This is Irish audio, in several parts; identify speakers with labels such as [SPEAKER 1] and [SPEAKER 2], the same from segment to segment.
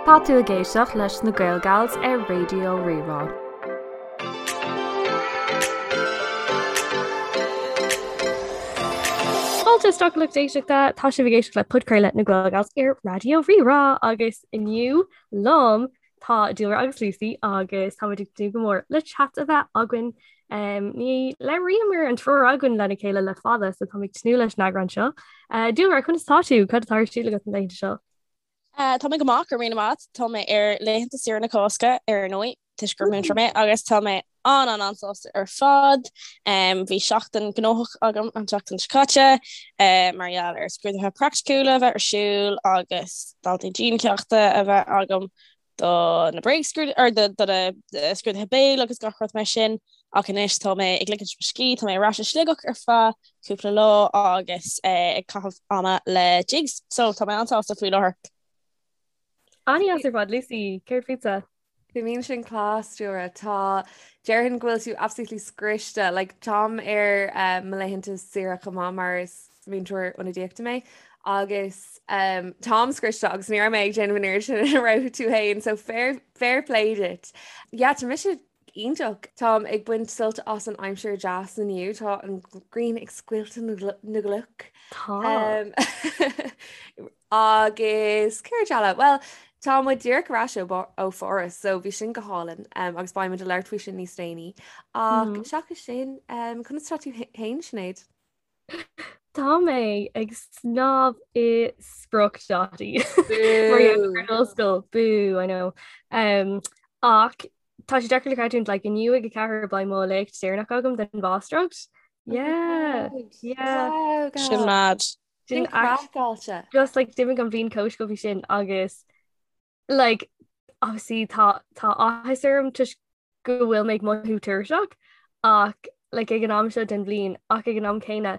[SPEAKER 1] Tá tú ag éisteacht leis na Gaelgals ar Raidió Rí-Rá.
[SPEAKER 2] Fáilte isteach a lucht éisteachta, tá sibh ag éisteacht le podchraoladh na Gaelgals ar Raidió Rí-Rá agus inniu liom tá Dúlra agus Lucy agus táimid ag tnúth go mór le chat a bheith againn. Um, ní labhraíomar an triúr againn lena chéile le fada so táim ag tnúth leis an eagrán seo. Uh, Dúlra, conas tá tú? Cad atá ar siúl agat na laethanta seo?
[SPEAKER 3] Tá mé go maith, go raibh míle maith. Tá mé ar laethanta saoire na Cásca, ar ndóigh, toisc gur múinteoir mé, agus tá mé an-an-an-sásta ar fad. Bhí seachtain gnóthach agam an tseachtain seo caite, mar gheall ar scrúduithe praiticiúla a bheith ar siúl agus daltaí diancheachta a bheith agam do na bréagscrúduithe, or do na scrúduithe béil agus gach rud mar sin. Ach anois tá mé ag ligint mo scíth, tá mé ar ais i Sligeach ar feadh cúpla lá agus ag caitheamh ama le Jigs, so tá mé an-sásta faoi láthair.
[SPEAKER 2] An-deas ar fad, Lucy, céard fútsa?
[SPEAKER 4] Bíonn sin class, Dúlra. Tá, déarfainn go bhfuil tú absolutely scriosta. Like, táim ar eh, mo laethanta saoire chomh maith mar is múinteoir ionadaíochta mé agus um, táim scriosta agus ní raibh mé ag déanamh an oiread sin a raibh tú féin, so fair, fair play duit. Yeah, tá mise Iontach! Táim ag baint sult as an aimsir deas inniu. Tá an ghrian ag scoilteadh na gcloch.
[SPEAKER 2] Tá.
[SPEAKER 4] Agus céard eile? Bhuel, tá muid díreach ar ais ó Pháras, so bhí sin go hálainn agus beidh muid ag labhairt faoi sin níos déanaí. Ach seachas sin, conas tá tú féin, Sinéad?
[SPEAKER 2] Tá mé ag snámh i spriocdhátaí. Mar gheall ar an ollscoil. Boo, I know. Um, ach tá sé deacair le creidiúint, like, inniu ag 4 beidh mo léacht deireanach agam den mháistreacht. Yeah, yeah.
[SPEAKER 4] Wow,
[SPEAKER 3] Sin mad.
[SPEAKER 4] Sin craiceáilte.
[SPEAKER 2] Just like d'imigh an bhliain chomh sciobtha sin agus like obviously tá tá áthas orm toisc go bhfuil mé ag mothú tuirseach ach like ag an am seo den bhliain ach ag an am céanna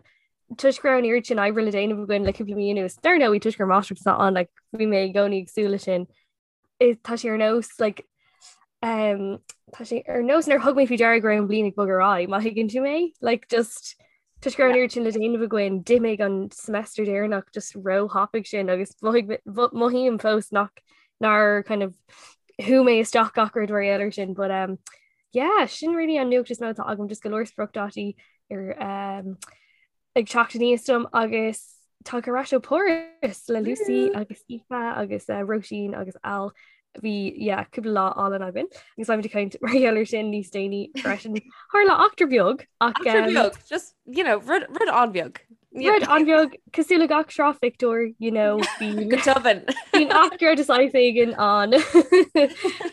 [SPEAKER 2] toisc go raibh an oiread sin oibre le déanamh againn le cúpla mí anuas dar ndóigh toisc gur máistreacht atá ann like bhí mé i gcónaí ag súil leis sin tá sé ar nós like um, tá sé ar nós nár thug mé faoi deara go raibh an bhliain ag bogadh ar aghaidh má thuigeann tú mé like just Toisc go raibh an oiread sin le déanamh againn, d'imigh an semester deireanach just róthapaidh sin agus mothaím fós nach nár kind of shú mé isteach gach rud mar gheall air sin. But um, yeah, sin really an nuacht is mó atá agam just go leor spriocdhátaí ar um, ag teacht aníos dom agus tá ar ais ó Pháras le Lucy agus Aoife agus uh, Róisín agus Al bhí yeah, cúpla lá álainn againn agus beimid ag caint mar gheall air sin níos déanaí freisin. Tharla eachtra beag
[SPEAKER 4] ach Eachtra um, beag, just, you know, rud, rud an-bheag.
[SPEAKER 2] Rud an-bheag cosúil le gach sraith phictiúr, you know,
[SPEAKER 4] bíonn Go tobann.
[SPEAKER 2] bíonn eachtra de saghas éigin ann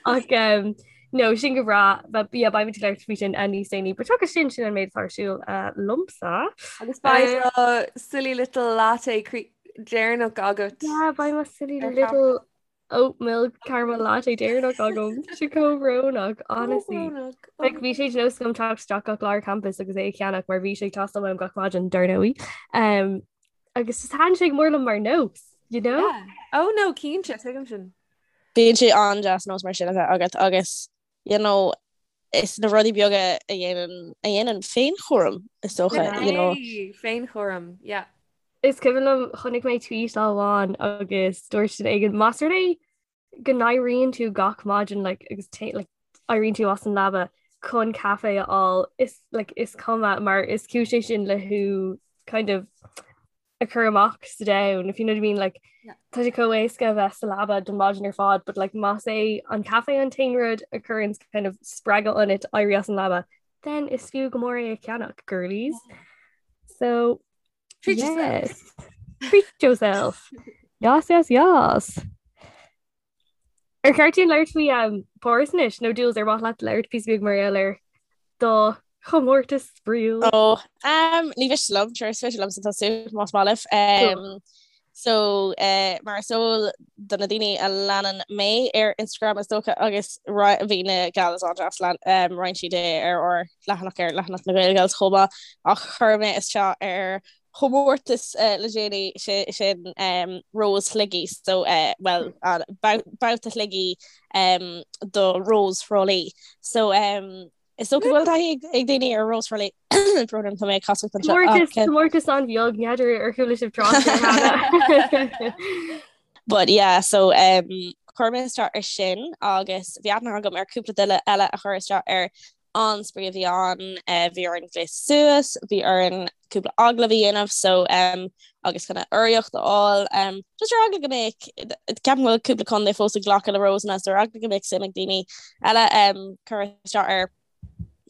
[SPEAKER 2] ach um, no, sin go breá, but yeah, beimid ag labhairt faoi sin uh, níos déanaí. But seachas sin sin an méid atá ar siúl uh, liomsa.
[SPEAKER 4] Agus beidh do silly little latte cre- deireanach agat.
[SPEAKER 2] Yeah, beidh mo silly Ar little oat milk caramel latte deireanach agam. Tá sé chomh brónach, honestly. Brónach. Like, bhí sé de nós agam teacht isteach gach lá ar campus agus é a cheannach mar bhí sé ag teastáil uaim gach maidin, dar ndóigh. Um, agus just thaitin sé go mór liom mar nós, you know?
[SPEAKER 4] Yeah. Oh no, cinnte, tuigim sin.
[SPEAKER 3] Bíonn sé an-deas nós mar sin a bheith agat agus you know, is na rudaí beaga a dhéanann a dhéanann féinchúram is dócha, you know.
[SPEAKER 4] Hey, féinchúram, yeah.
[SPEAKER 2] Is cuimhin liom chonaic mé tweet lá amháin agus dúirt duine éigin más rud é go n-éiríonn tú gach maidin like, agus like, éiríonn tú as an leaba chun caife a fháil is like, is cuma mar is cúis é sin le thú kind of a chur amach sa domhan if you know what I mean like tá sé chomh éasca a bheith sa leaba don maidin ar fad but like más é an caife an t-aon rud a chuireann kind of spreagadh ionat éirí as an leaba then is fiú go mór é a cheannach girlies so
[SPEAKER 4] Treat
[SPEAKER 2] yes.
[SPEAKER 4] yourself.
[SPEAKER 2] Treat yourself. Yas, yas, yas. Ar cheart dúinn labhairt faoi um, Páras anois nó Jules ar mhaith leat labhairt píosa beag mar gheall ar do chomórtas spraíúil?
[SPEAKER 3] Ó, um, ní mhiste liom, sure, is féidir liomsa tosú más maith libh. Um, so, uh, mar is eol do na daoine a leanann mé ar Instagram is dócha agus bhí na gals an-deas lean um, roinn siad é ar ár leathanach ar leathanach na Gaelgals chomh maith ach chuir mé isteach ar chomórtas le déanaí, sin Rós Shligigh, so bhuel, babhta Shligigh do Rós Thrá Lí. So is dócha go bhfuil taithí ag daoine ar Rós Thrá Lí, brón orm, tá mé ag casacht
[SPEAKER 2] anseo. Comórtas an-bheag, n'fheadar ar chuala sibh trácht air cheana.
[SPEAKER 3] But yeah, so. chuir mé isteach ar sin agus bhí aithne agam ar cúpla duine eile a chuir isteach air. An-spraoi a bhí ann, bhí orainn gléasadh suas, bhí orainn cúpla agallamh a dhéanamh so agus kind of urraíocht a fháil. Just ar eagla go mbeadh, ceapaim go bhfuil cúpla contae fós ag glacadh le Rósanna so ar eagla go mbeadh suim ag daoine eile cur isteach air.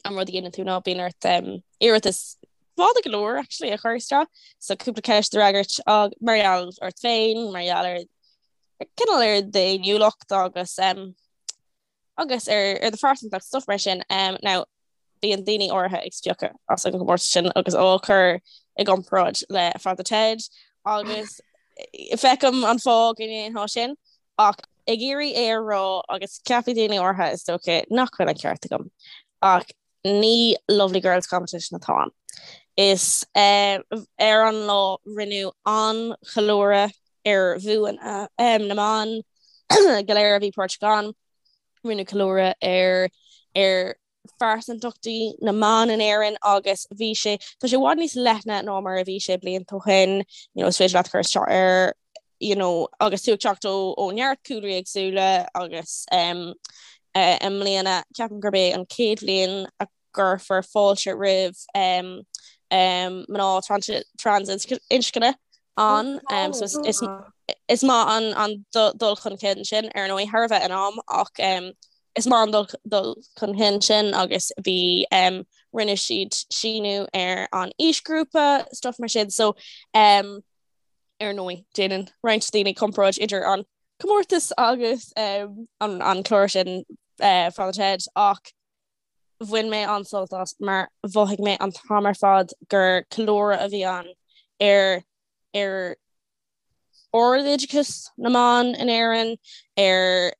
[SPEAKER 3] An rud a dhéanann tú ná bíonn ort iarratas fada go leor actually a chur isteach so cúpla ceist a fhreagairt mar gheall ort féin, mar gheall ar cineál ar d'fhéiniúlacht agus agus ar ar do phearsantacht stuff mar sin. Now bíonn daoine áirithe ag spiocadh as an gcomórtas sin agus á chur i gcomparáid le Father Ted agus feicim an fáth go ndéanfá sin ach ag iarraidh é a rá agus ceapfaidh daoine áirithe is dócha nach bhfuil an ceart agam ach ní Lovely Girls Competition atá ann. Is ar an lá rinneadh an-cheiliúradh ar bhuanna na mban go léir a bhí páirteach ann. Rinneadh ceiliúradh ar ar phearsantachtaí na mban in Éirinn agus bhí sé, tá sé i bhfad níos leithne ná mar a bhí sé blianta ó shin, you know, is féidir leat cur isteach air, you know, agus tú ag teacht ó ó neart cúlraí éagsúla agus um, uh, i mbliana ceapaim gurb é an chéad bhliain a gcuirfear fáilte roimh um, um, mná trans, trans-inscne ann um, so is, is, is maith an, an dul chun cinn sin ar ndóigh thar a bheith in am ach um, is maith an dul, dul chun cinn sin agus bhí um, rinne siad síniú ar an aoisghrúpa stuff mar sin so um, Ar ndóigh, déanann roinnt daoine comparáid idir an comórtas agus an an clár sin Father Ted ach bhain mé an-sult as mar mhothaigh mé an t-am ar fad gur ceiliúradh a bhí ann ar ar ardoideachas na mban in Éirinn, ar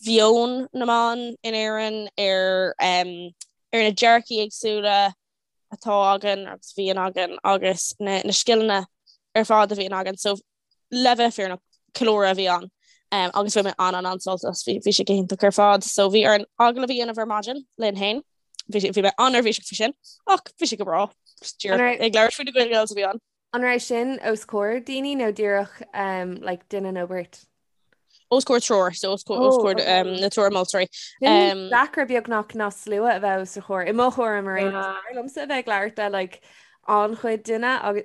[SPEAKER 3] mheon na mban in Éirinn, ar ar na dearcaí éagsúla atá againn agus a bhíonn againn agus na na scileanna ar fad a bhíonn againn. So le bheith fírinneach, ceiliúradh a bhí ann um, agus bhain mé an an an-sult as bhí bhí sé go hiontach ar fad. So bhí orainn agallamh a dhéanamh ar maidin linn féin. Bhí bhí mé an-neirbhíseach faoi sin ach bhí sé go breá. Ag labhairt faoi na Gael-Gals a bhí ann.
[SPEAKER 4] An raibh sin os comhair daoine nó díreach um, like, duine nó beirt?
[SPEAKER 3] Os comhair triúr, so os comhair, os Oh, comhair okay. um, na triúr moltóirí.
[SPEAKER 4] Sin Um, deacra beagnach ná slua a bheith os do chomhair. I mo thuairim ar aon nós, Yeah. b'fhearr liomsa a bheith ag labhairt le like, an-chuid duine agus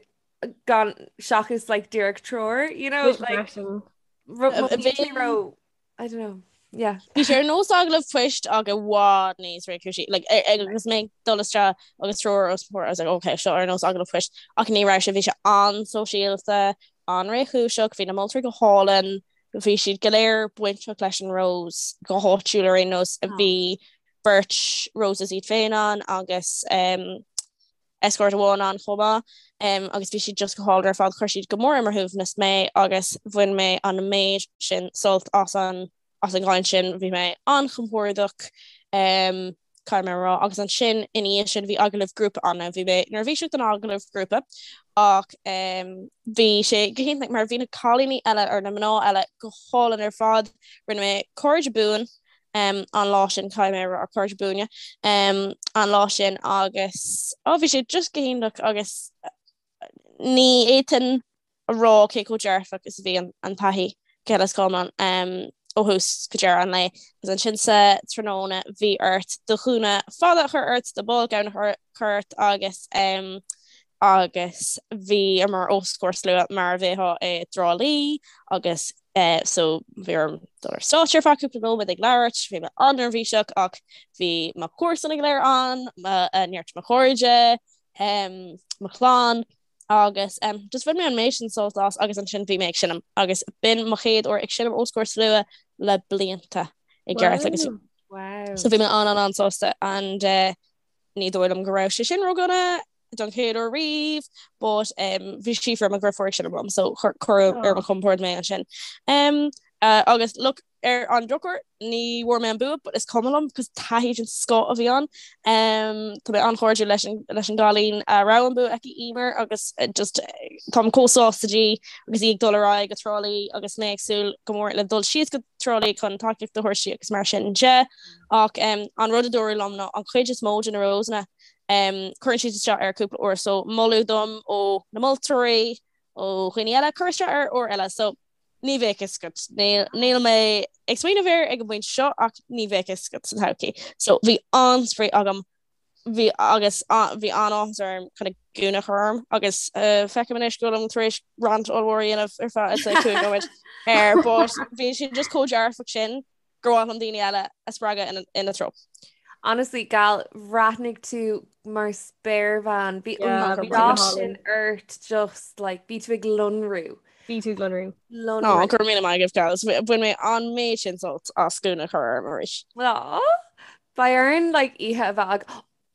[SPEAKER 4] gan seachas like, díreach triúr, you know, like, freisin. ro- mo
[SPEAKER 3] Bhí-
[SPEAKER 4] bhí ro I don't know. Yeah.
[SPEAKER 3] Bhí sé ar nós agallamh poist ach i bhfad níos réchúisí. Like, agus mé ag dul isteach agus triúr os mo chomhair, I was like, okay, seo ar nós agallamh poist. Ach ní raibh sé, bhí sé an-sóisialta, an-réchúiseach, bhí na moltóirí go hálainn, bhí siad go léir bainteach leis an Rose go háitiúil ar aon nós. Bhí beirt Roses iad féin ann agus um, escort amháin ann chomh maith agus bhí siad just go hálainn ar fad. Chuir siad go mór ar mo shuaimhneas mé agus bhain mé an méid sin sult as an as an gcaint sin. Bhí mé an-chompordach caithfidh mé a rá agus ansin ina dhiaidh sin bhí agallamh grúpa ann. Bhí mé neirbhíseach don agallamh grúpa ach bhí sé go hiontach mar bhí na cailíní eile or na mná eile go hálainn ar fad. Rinne mé cairde buan an lá sin caithfidh mé a rá cairde buana an lá sin agus ó bhí sé just go hiontach agus ní fhéadfainn a rá cé chomh dearfach is a bhí an taithí go huile is go hiomlán ó thús go deireadh an lae. Agus ansin sa tráthnóna bhí ort do ghúna fada a chur ort, do ball gown a chur ort agus agus bhíomar os comhair slua mar a bheifeá i dTrá Lí agus so bhí orm dul ar stáitse ar feadh cúpla nóiméad ag labhairt, bhí mé an-neirbhíseach ach bhí mo chomharsana go léir ann, neart mo chairde, mo chlann agus just bhain mé an méid sin sult as agus ansin bhí mé ag seinm agus b'in mo chéad uair ag seinm os comhair slua le blianta i gceart agus so bhí mé an-an-an-sásta and uh, ní dóigh liom go raibh sé sin ródhona don chéad uair riamh but um, bhí Síofra mo dheirfiúr ag seinm liom so cuireadh ar mo chompord mé ansin. Um, uh, agus look ar an drochuair ní bhfuair mé an bua but is cuma liom cos taithí den scoth a bhí ann. Um, tá mé an-chairdiúil leis an, leis an gcailín a raibh an bua aici Emer agus uh, just táim chomh sásta di agus í ag dul ar aghaidh go Trá Lí agus mé ag súil go mór le dul síos go Trá Lí chun tacaíocht a thabhairt di agus mar sin de. Ach um, an rud a dúradh liom ná an chuid is mó de na Rosanna Cuireann siad isteach air cúpla uair so moladh dom ó na moltóirí, ó dhaoine eile, cur isteach air uair eile. So Ní bheadh fhios agat. Níl mé ag smaoineamh air ag an bpointe seo ach ní bheadh fhios agat sa todhchaí. So bhí an-spraoi agam bhí agus bhí an-áthas orm kind of gúna a chur orm agus feicim anois go bhfuilim tar éis rant ollmhór a dhéanamh ar feadh I'd say 5 nóiméad air but bhí sé just chomh dearfach sin gur mhaith liom daoine eile a spreagadh ina treo.
[SPEAKER 4] Honestly, gal, bhreathnaigh tú mar spéirbhean. Bhí an dath sin ort just like bhí tú ag lonrú.
[SPEAKER 2] Bhí tú ag lonrú.
[SPEAKER 3] Lonrú. Ó, go raibh míle maith agaibh, gals. Bhain mé an méid sin sult as gúna a chur orm arís.
[SPEAKER 4] Aw, beidh orainn like oíche a bheith ag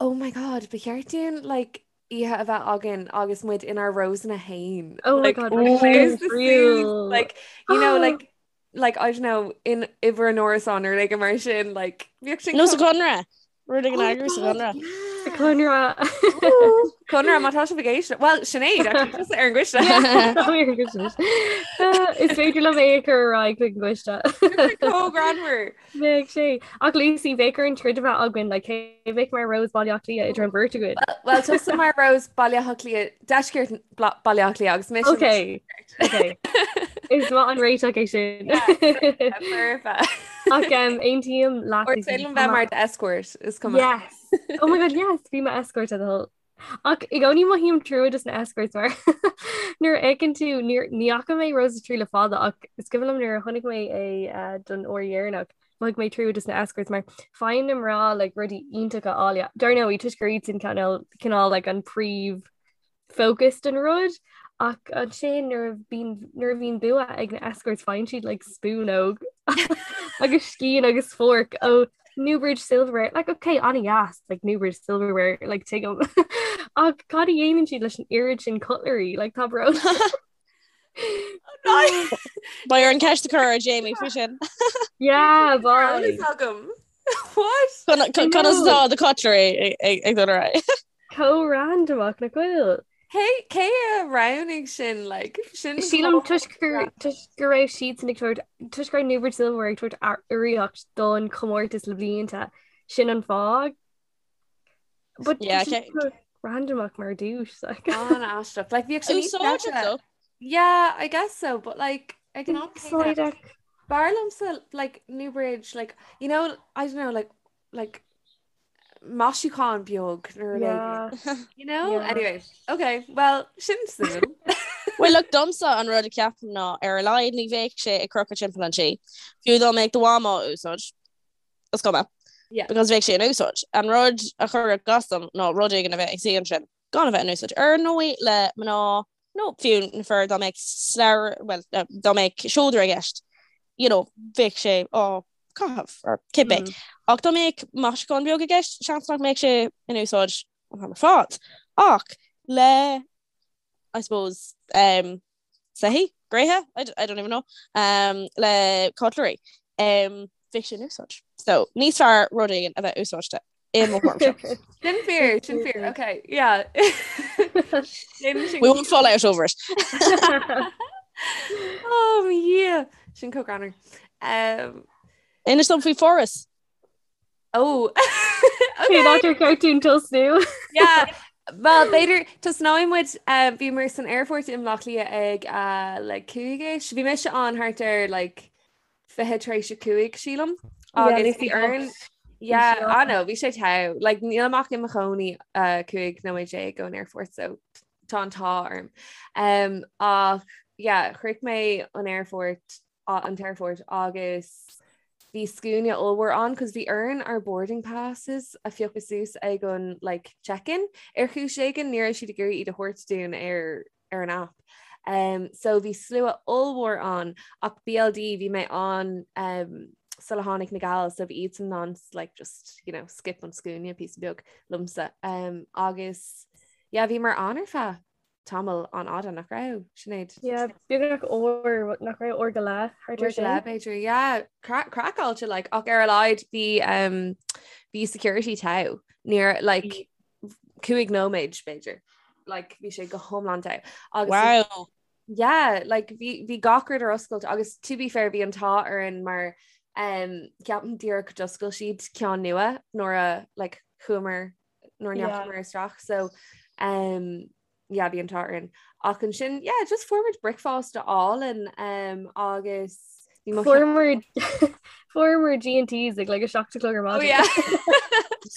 [SPEAKER 4] Oh my god, ba cheart dúinn like oíche a bheith againn agus muid inár Rosanna féin.
[SPEAKER 2] Oh my
[SPEAKER 4] Like,
[SPEAKER 2] god,
[SPEAKER 4] close the suits, like, you know, like, like, I don't know, in i bhur n-árasán nó rud éigin mar sin, like,
[SPEAKER 3] bheadh sin Nó sa Chonradh! Rud éigin a eagrú sa
[SPEAKER 2] Chonradh. Sa Chonradh.
[SPEAKER 4] Conradh, má tá sibh ag éisteacht. Well, Sinéad, actually, tusa ar an gcoiste.
[SPEAKER 2] Tá mé ar an gcoiste. Is féidir liom é a chur ar aghaidh chuig an gcoiste.
[SPEAKER 4] Chomh greannmhar.
[SPEAKER 2] Bheadh sé. Ach Lucy, bheadh orainn troid a bheith againn, like, cé a bheadh mar Rose Baile Átha Cliath idir an bheirt againn?
[SPEAKER 4] Well, tusa mar Rose Baile Átha Cliath, deisceart Baile Átha Cliath agus mise.
[SPEAKER 2] Okay. Okay. Is maith an réiteach é sin.
[SPEAKER 4] Perfect.
[SPEAKER 2] Ach um, aontaím
[SPEAKER 4] leat. Or féidir liom bheith mar escort is
[SPEAKER 2] cuma. Yes. Oh my god, yes, bí mo escort a thoil. Ach i gcónaí mothaím trua dos na escorts mar nuair a fheiceann tú ní fhaca mé Rose of Tralee le fada ach is cuimhin liom nuair a chonaic mé é eh, don uair dheireanach mhothaigh mé trua dos na escorts mar faigheann na mná like rudaí iontacha áille. Dar ndóigh toisc gur iad sin cineál cineál like an príomh focus den rud ach ansin nuair a bhíonn nuair a bhíonn bua ag na escorts faigheann siad like spúnóg agus scian agus fork ó Newbridge Silverware like okay an-deas like Newbridge Silverware like tuigim ach cad a dhéanann siad leis an oiread sin cutlery like tá brón.
[SPEAKER 3] Beidh orainn ceist a chur ar Jamie faoi sin.
[SPEAKER 2] Yeah, bye.
[SPEAKER 4] agam. What?
[SPEAKER 3] Conas atá the cutlery ag dul ar aghaidh?
[SPEAKER 2] Chomh randamach nach bhfuil.
[SPEAKER 4] Cé cé a roghnaigh sin like
[SPEAKER 2] sin Sílim toisc gur toisc go raibh siadsan ag tabhairt toisc go raibh Newbridge Silverware ag tabhairt urraíocht don chomórtas le blianta sin an fáth. But
[SPEAKER 3] Yeah,
[SPEAKER 2] tá sé
[SPEAKER 3] okay.
[SPEAKER 2] chomh randamach mar duais like.
[SPEAKER 4] An-aisteach. Like bhíodh sé níos
[SPEAKER 3] Úsáideach
[SPEAKER 4] deise.
[SPEAKER 3] though.
[SPEAKER 4] Yeah, I guess so, but like ag an am céanna,
[SPEAKER 2] Úsáideach.
[SPEAKER 4] b'fhearr liomsa like Newbridge like you know I don't know like like maisiúchán beag nó rud
[SPEAKER 2] Yeah.
[SPEAKER 4] éigin, you know?
[SPEAKER 2] Yeah.
[SPEAKER 4] Anyway, okay, well, sin suimiúil.
[SPEAKER 3] Well, look, domsa an rud a ceapaim ná ar a laghad ní bheadh sé ag crochadh timpeall an tí. Fiú dá mbeadh do mham á úsáid, is cuma.
[SPEAKER 4] Yeah.
[SPEAKER 3] Because bheadh sé in úsáid. An rud a chuirfeadh as dom ná rud éigin a bheith ag suí ansin gan a bheith in úsáid. Ar ndóigh le mná nó fiú na fir dá mbeadh slabhra, well, dá mbeadh seodra i gceist, you know, bheadh sé á caitheamh or cibé. Mm. Ach dá mbeadh maisiúchán beag i gceist, seans nach mbeadh sé in úsáid an t-am ar fad. Ach le I suppose um, soithí, gréithe, I, I don't even know, um, le cutlery, um, bheadh sé in úsáid. So níos fearr rud éigin a bheith úsáidte i mo
[SPEAKER 4] thuairimse. Sin fíor, sin fíor, okay, yeah.
[SPEAKER 3] We won't fall out over it.
[SPEAKER 4] Oh yeah, sin chomh greannmhar. Um,
[SPEAKER 3] Inis dom faoi Pháras.
[SPEAKER 4] Oh
[SPEAKER 2] okay. Cén áit ar cheart dúinn tosnú?
[SPEAKER 4] Yeah. Well, b'fhéidir tosnóidh muid uh, bhíomar san aerfort i mBaile Átha Cliath ag uh, like 5ish. Bhí mise ann thart ar like 20 tar éis a 5 sílim. Agus bhí orainn Yeah, I know, bhí sé togha. Like, nílim ach i mo chónaí uh, 15 nóiméad ón aerfort, so tá an t-ádh orm. Um, ach yeah, shroich mé an aerfort an t-aerfort agus bhí scuaine ollmhór ann cos bhí orainn ár boarding passes a phiocadh suas ag an like check-in ar chúis éigin ní raibh siad ag iarraidh iad a thabhairt dúinn ar ar an app. Um, so bhí slua ollmhór ann ach BLD bhí mé ann um, sula tháinig na gals so bhí iadsan in ann like just you know skip an scuaine píosa beag liomsa um, agus yeah bhíomar ann ar feadh tamall an-fhada nach raibh Sinéad?
[SPEAKER 2] Yeah, beagnach uair nach raibh uair go leith
[SPEAKER 4] thart ar sin. B'fhéidir yeah craiceáilte like ach ar a laghad bhí um, bhí security togha níor like 5 nóiméad b'fhéidir like bhí sé go hiomlán togha
[SPEAKER 3] agus Wow.
[SPEAKER 4] yeah like bhí bhí gach rud ar oscailt agus to be fair bhí an t-ádh orainn mar um, ceapaim díreach d'oscail siad ceann nua nuair a like chuamar nuair a ndeachamar isteach so um, yeah bhí an t-ádh orainn. Ach ansin yeah just fuair muid bricfeasta álainn um, agus bhí mo
[SPEAKER 2] Fuaireamar fuaireamar G&T's ag like 7 a chlog ar
[SPEAKER 4] Oh
[SPEAKER 2] maidin.
[SPEAKER 4] yeah.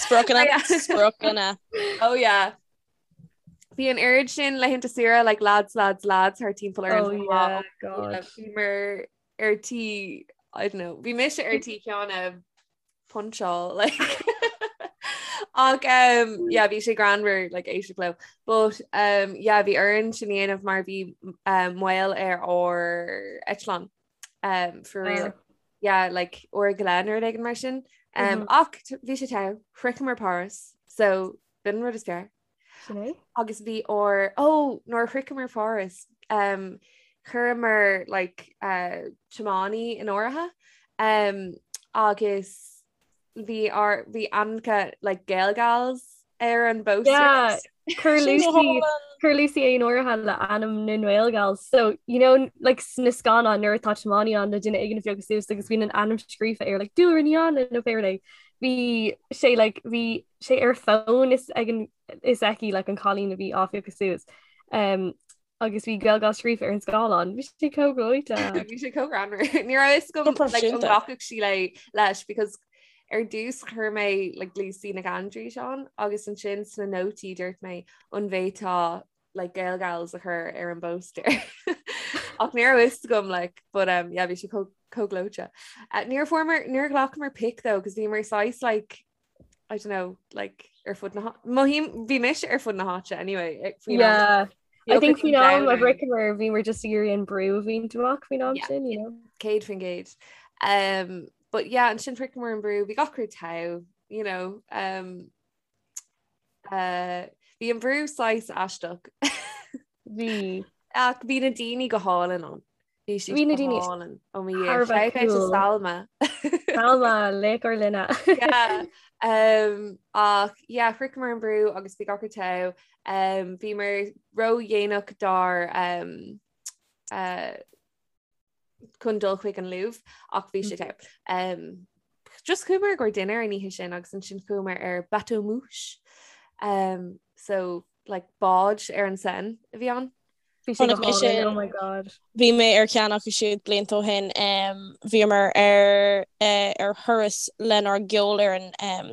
[SPEAKER 3] Spriocanna,
[SPEAKER 4] Yeah.
[SPEAKER 3] spriocanna.
[SPEAKER 4] Oh yeah. Bhí an oiread sin laethanta saoire like lads lads lads thar timpeall orainn
[SPEAKER 2] Oh
[SPEAKER 4] chomh
[SPEAKER 2] yeah,
[SPEAKER 4] maith.
[SPEAKER 2] God.
[SPEAKER 4] Bhíomar ar tí I don't know, bhí mise ar tí ceann a puncháil like ach um, yeah, bhí sé greannmhar like éisteacht leo. But um, yeah, bhí orainn sin a dhéanamh mar bhí um, moill ar ár eitleán um, for real.
[SPEAKER 2] Ah.
[SPEAKER 4] Yeah, like uair go leith nó rud éigin mar sin. Um,
[SPEAKER 2] Mhm.
[SPEAKER 4] Ach bhí sé togha, shroicheamar Páras, so b'in an rud is fearr.
[SPEAKER 2] Sin é?
[SPEAKER 4] Agus bhí ár ó nuair a shroicheamar Páras um, chuireamar like, uh, tiománaí in áirithe um, agus bhí ár bhí ainmneacha like, Gaelgals ar an bpóstaer.
[SPEAKER 2] Yeah, chuir
[SPEAKER 3] Sin go
[SPEAKER 2] Lucy
[SPEAKER 3] hálainn.
[SPEAKER 2] chuir Lucy é in áirithe le ainm na nGaelgals. So, you know, like sna scannáin nuair atá tiománaí ann le duine éigin a phiocadh suas agus bíonn an ainm scríofa air like Dúlra Ní Anna nó pé rud é. Bhí sé like bhí sé ar fón is ag an is aici like an cailín a bhí á phiocadh suas. Um, agus bhí Gaelgals scríofa ar an scáileán. Bhí sé chomh gleoite.
[SPEAKER 4] Bhí sé chomh greannmhar. Ní raibh fhios agam
[SPEAKER 3] Go
[SPEAKER 4] like, an
[SPEAKER 3] proifisiúnta.
[SPEAKER 4] nglacfadh sí le leis because ar dtús chuir mé like, Lucy Nic Aindreis ann agus ansin sna nótaí dúirt mé an bhféadfá like, Gaelgals a chur ar an bpóstaer. Ach ní raibh fhios agam like, but um, yeah, bhí sé chomh chomh gleoite. Uh, níor fuaireamar níor ghlacamar pic though, cos bhíomar saghas like I don't know, like ar fud na mothaím bhí mise ar fud na háite anyway eh, faoin am.
[SPEAKER 2] Yeah.
[SPEAKER 4] Bhí
[SPEAKER 2] I think
[SPEAKER 4] ocras
[SPEAKER 2] faoin am a
[SPEAKER 4] domhain.
[SPEAKER 2] shroicheamar bhíomar just ag iarraidh an brú a bhaint amach faoin am
[SPEAKER 4] Yeah.
[SPEAKER 2] sin, you know.
[SPEAKER 4] 100%. Um, but yeah, ansin shroicheamar an brú, bhí gach rud togha, you know, um, uh, bhí an brú saghas aisteach.
[SPEAKER 2] Bhí.
[SPEAKER 4] Ach bhí na daoine go hálainn ann. Bhí siad
[SPEAKER 2] Bhí na
[SPEAKER 4] go
[SPEAKER 2] daoine
[SPEAKER 4] hálainn. Ó mo Dhia.
[SPEAKER 2] thar a bheith
[SPEAKER 4] Shout out to
[SPEAKER 2] cool.
[SPEAKER 4] Salma.
[SPEAKER 2] Salma, laoch ár linne.
[SPEAKER 4] Yeah. Um, ach yeah, shroicheamar an brú agus bhí gach rud togha. Um, bhíomar ródhéanach dár um, uh, chun dul chuig an Louvre ach bhí sé togha. Um, just chuamar i gcomhair dinnéar an oíche sin agus ansin chuamar ar bateau mouche. Um, so like bád ar an Seine a bhí ann.
[SPEAKER 2] Bhí sé go
[SPEAKER 3] Chonaic mé
[SPEAKER 2] hálainn,
[SPEAKER 3] sin.
[SPEAKER 2] oh my god.
[SPEAKER 3] Bhí mé ar cheann acu siúd blianta ó shin. Um, bhíomar ar uh, ar thuras lenár gceolfhoireann um,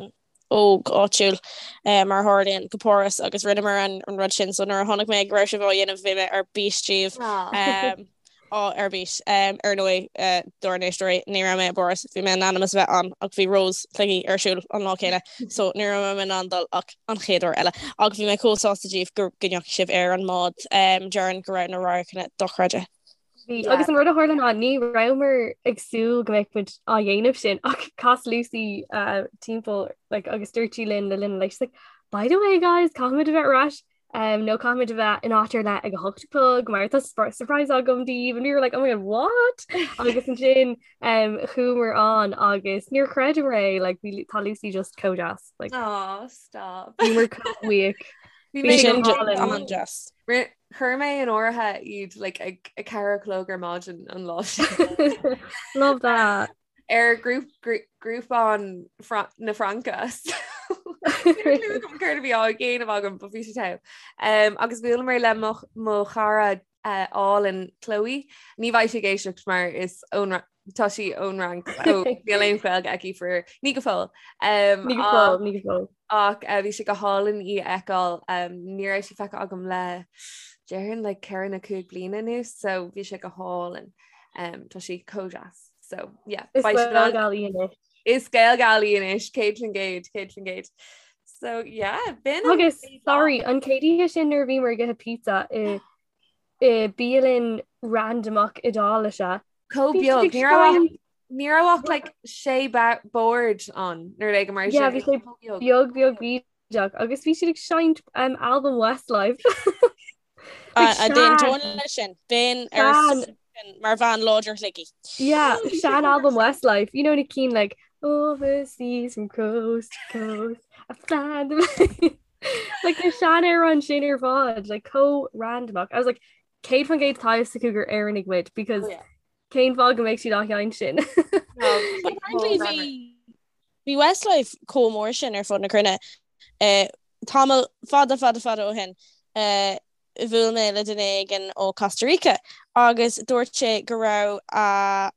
[SPEAKER 3] óg áitiúil uh, mar a tharlaíonn go Páras agus rinneamar an, an rud sin so nuair a chonaic mé go raibh sibh á dhéanamh bhí mé ar bís díobh.
[SPEAKER 4] Ah.
[SPEAKER 3] Um, á ar bís. Um, ar ndóigh uh, dár n-éisteoirí ní raibh mé i bPáras, bhí mé in ainm is a bheith ann ach bhí Rós Shligigh ar siúl an lá céanna so ní raibh mé in ann dul ach an chéad uair eile. Ach bhí mé chomh sásta díobh go go ndeachaigh sibh ar an mbád um, déarfainn go raibh na radharcanna dochreidte.
[SPEAKER 2] Bhí
[SPEAKER 4] Yeah.
[SPEAKER 2] agus an rud a tharla ná ní rabhamar ag súil go mbeadh muid á dhéanamh sin ach chas Lucy uh, timpeall like, agus dúirt sí linn le linn like, she's like, by the way guys, caithfimid a bheith ar ais Um, nó caithfimid a bheith in áit ar leith ag a hocht a chlog mar tá surprise agam daoibh and we were like oh my god what agus ansin um, chuamar ann agus níor chreideamar é like, bhí tá Lucy just chomh deas like,
[SPEAKER 4] Oh, stop.
[SPEAKER 2] bhíomar chomh buíoch.
[SPEAKER 4] Bhí
[SPEAKER 2] Bhí
[SPEAKER 4] mé
[SPEAKER 2] sé
[SPEAKER 3] Sin
[SPEAKER 2] go hálainn.
[SPEAKER 3] an-deas.
[SPEAKER 4] Ri- Chuir mé in áirithe iad like, ag a ceathair a chlog ar maidin an lá sin.
[SPEAKER 2] Love that.
[SPEAKER 4] ar grúpán na Fraince. Céard a bhí á dhéanamh agam but bhí sé togha. Um, agus bhuaileamar le mo, mo chara uh, álainn Chloe. Ní bheidh sí ag éisteacht mar is ón tá sí ón Fhrainc so níl aon Ghaeilge aici for ní go fóill. Um,
[SPEAKER 2] Ní go fóill, ní go fóill.
[SPEAKER 4] ach uh, bhí sé go hálainn í a fheiceáil um, ní raibh sí feicthe agam le déarfainn le ceithre nó cúig bliana anuas so bhí sé go hálainn. Um, tá sí chomh deas. So yeah,
[SPEAKER 2] Is
[SPEAKER 4] beidh siad in ann-
[SPEAKER 2] Gaelgal í anois.
[SPEAKER 4] Is Gaelgal í anois, 100%, 100%. So yeah, b'in an
[SPEAKER 2] Agus
[SPEAKER 4] chéad lá.
[SPEAKER 2] sorry, an chéad oíche sin nuair a bhíomar ag ithe pizza i i bialann randomach Iodáilise.
[SPEAKER 4] Chomh
[SPEAKER 2] Bhí siad
[SPEAKER 4] beag,
[SPEAKER 2] ag
[SPEAKER 4] ní raibh ach-
[SPEAKER 2] seinnt
[SPEAKER 4] ní raibh ach like sé ba- bord ann nó rud éigin mar
[SPEAKER 2] Yeah,
[SPEAKER 4] sin.
[SPEAKER 2] bhí sé
[SPEAKER 4] Chomh beag.
[SPEAKER 2] beag beag bídeach agus bhí siad ag seinnt um, album Westlife. Like,
[SPEAKER 3] A d'aontóinn
[SPEAKER 2] sean-
[SPEAKER 3] leis sin, bheinn ar
[SPEAKER 2] sean
[SPEAKER 3] sin mar bhean láidir Shligigh.
[SPEAKER 2] Yeah, sean album Westlife. You know na cinn like overseas from coast to coast. I find them. like na seanamhráin sin ar fad, like chomh randomach. I was like 100% tá a fhios acu gur Éireannaigh muid because
[SPEAKER 4] Oh, yeah.
[SPEAKER 2] cén fáth go mbeadh siad á sheinnt sin.
[SPEAKER 4] No,
[SPEAKER 3] But apparently
[SPEAKER 4] chomh
[SPEAKER 3] bhí bhí Westlife chomh mór sin ar fud na cruinne. Eh, tamall fada fada fada ó shin. Eh, bhuail mé le duine éigin ó Costa Rica agus dúirt sé go raibh a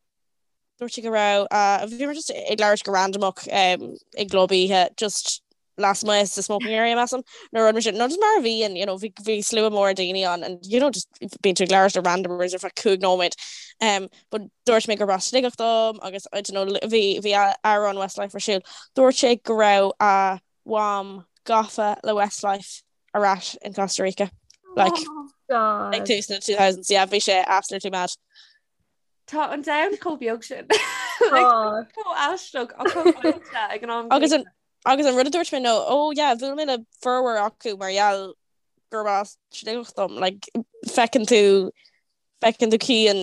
[SPEAKER 3] dúirt sé go raibh a bhíomar just ag labhairt go randamach i gclub oíche just lasmuigh sa smoking area measaim nó rud mar sin nó just mar a bhíonn you know bhí bhí slua mór daoine ann and you know just bíonn tú ag labhairt le randomers ar feadh 5 nóiméad um but dúirt mé gurb as Sligeach dom agus I don't know bhí bhí amhrán Westlife ar siúl dúirt sé go raibh a mham gafa le Westlife ar ais in Costa Rica like
[SPEAKER 2] God.
[SPEAKER 3] ag tús na 2000s yeah bhí sé absolutely mad.
[SPEAKER 4] Tá an domhan chomh beag sin.
[SPEAKER 2] Tá.
[SPEAKER 4] Chomh aisteach ach chomh oilte ag an am
[SPEAKER 3] Agus
[SPEAKER 4] céanna.
[SPEAKER 3] an agus an rud a dúirt mé nó oh yeah bhuail mé le formhór acu mar gheall gurb as Sligeach dom like feiceann tú feiceann tú Cian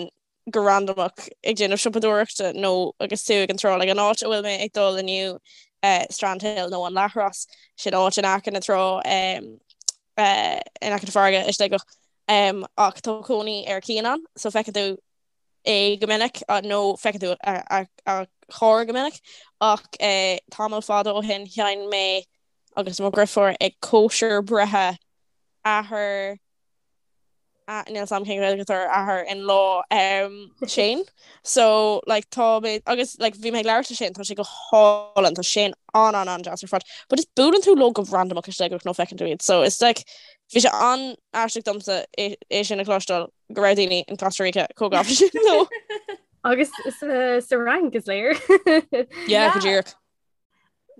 [SPEAKER 3] go randamach ag déanamh siopadóireachta nó agus tú ag an trá, like an áit a bhfuil mé ag dul inniu eh, Strandhill nó an Leathros, sin áit in aice na trá um, eh, in aice na farraige i Sligeach um, ach tá cónaí ar Cian ann so feiceann tú é go minic nó feiceann tú a, a, a charr go minic ach eh, tamall fada ó shin sheinn mé agus mo dheirfiúr ag cóisir breithe athair Níl a fhios agam cén Ghaeilge atá ar athair in law Shane so like tá mé agus like bhí mé ag labhairt le Shane tá sé go hálainn tá Shane an an an deas ar fad but just buaileann tú leo go randamach i Sligeach nó feiceann tú iad so it's like bhí sé an-aisteach domsa é é sin a chloisteáil go raibh daoine in Costa Rica chomh gafa sin leo.
[SPEAKER 2] Agus sa sa Fhrainc is léir.
[SPEAKER 3] Yeah, go díreach.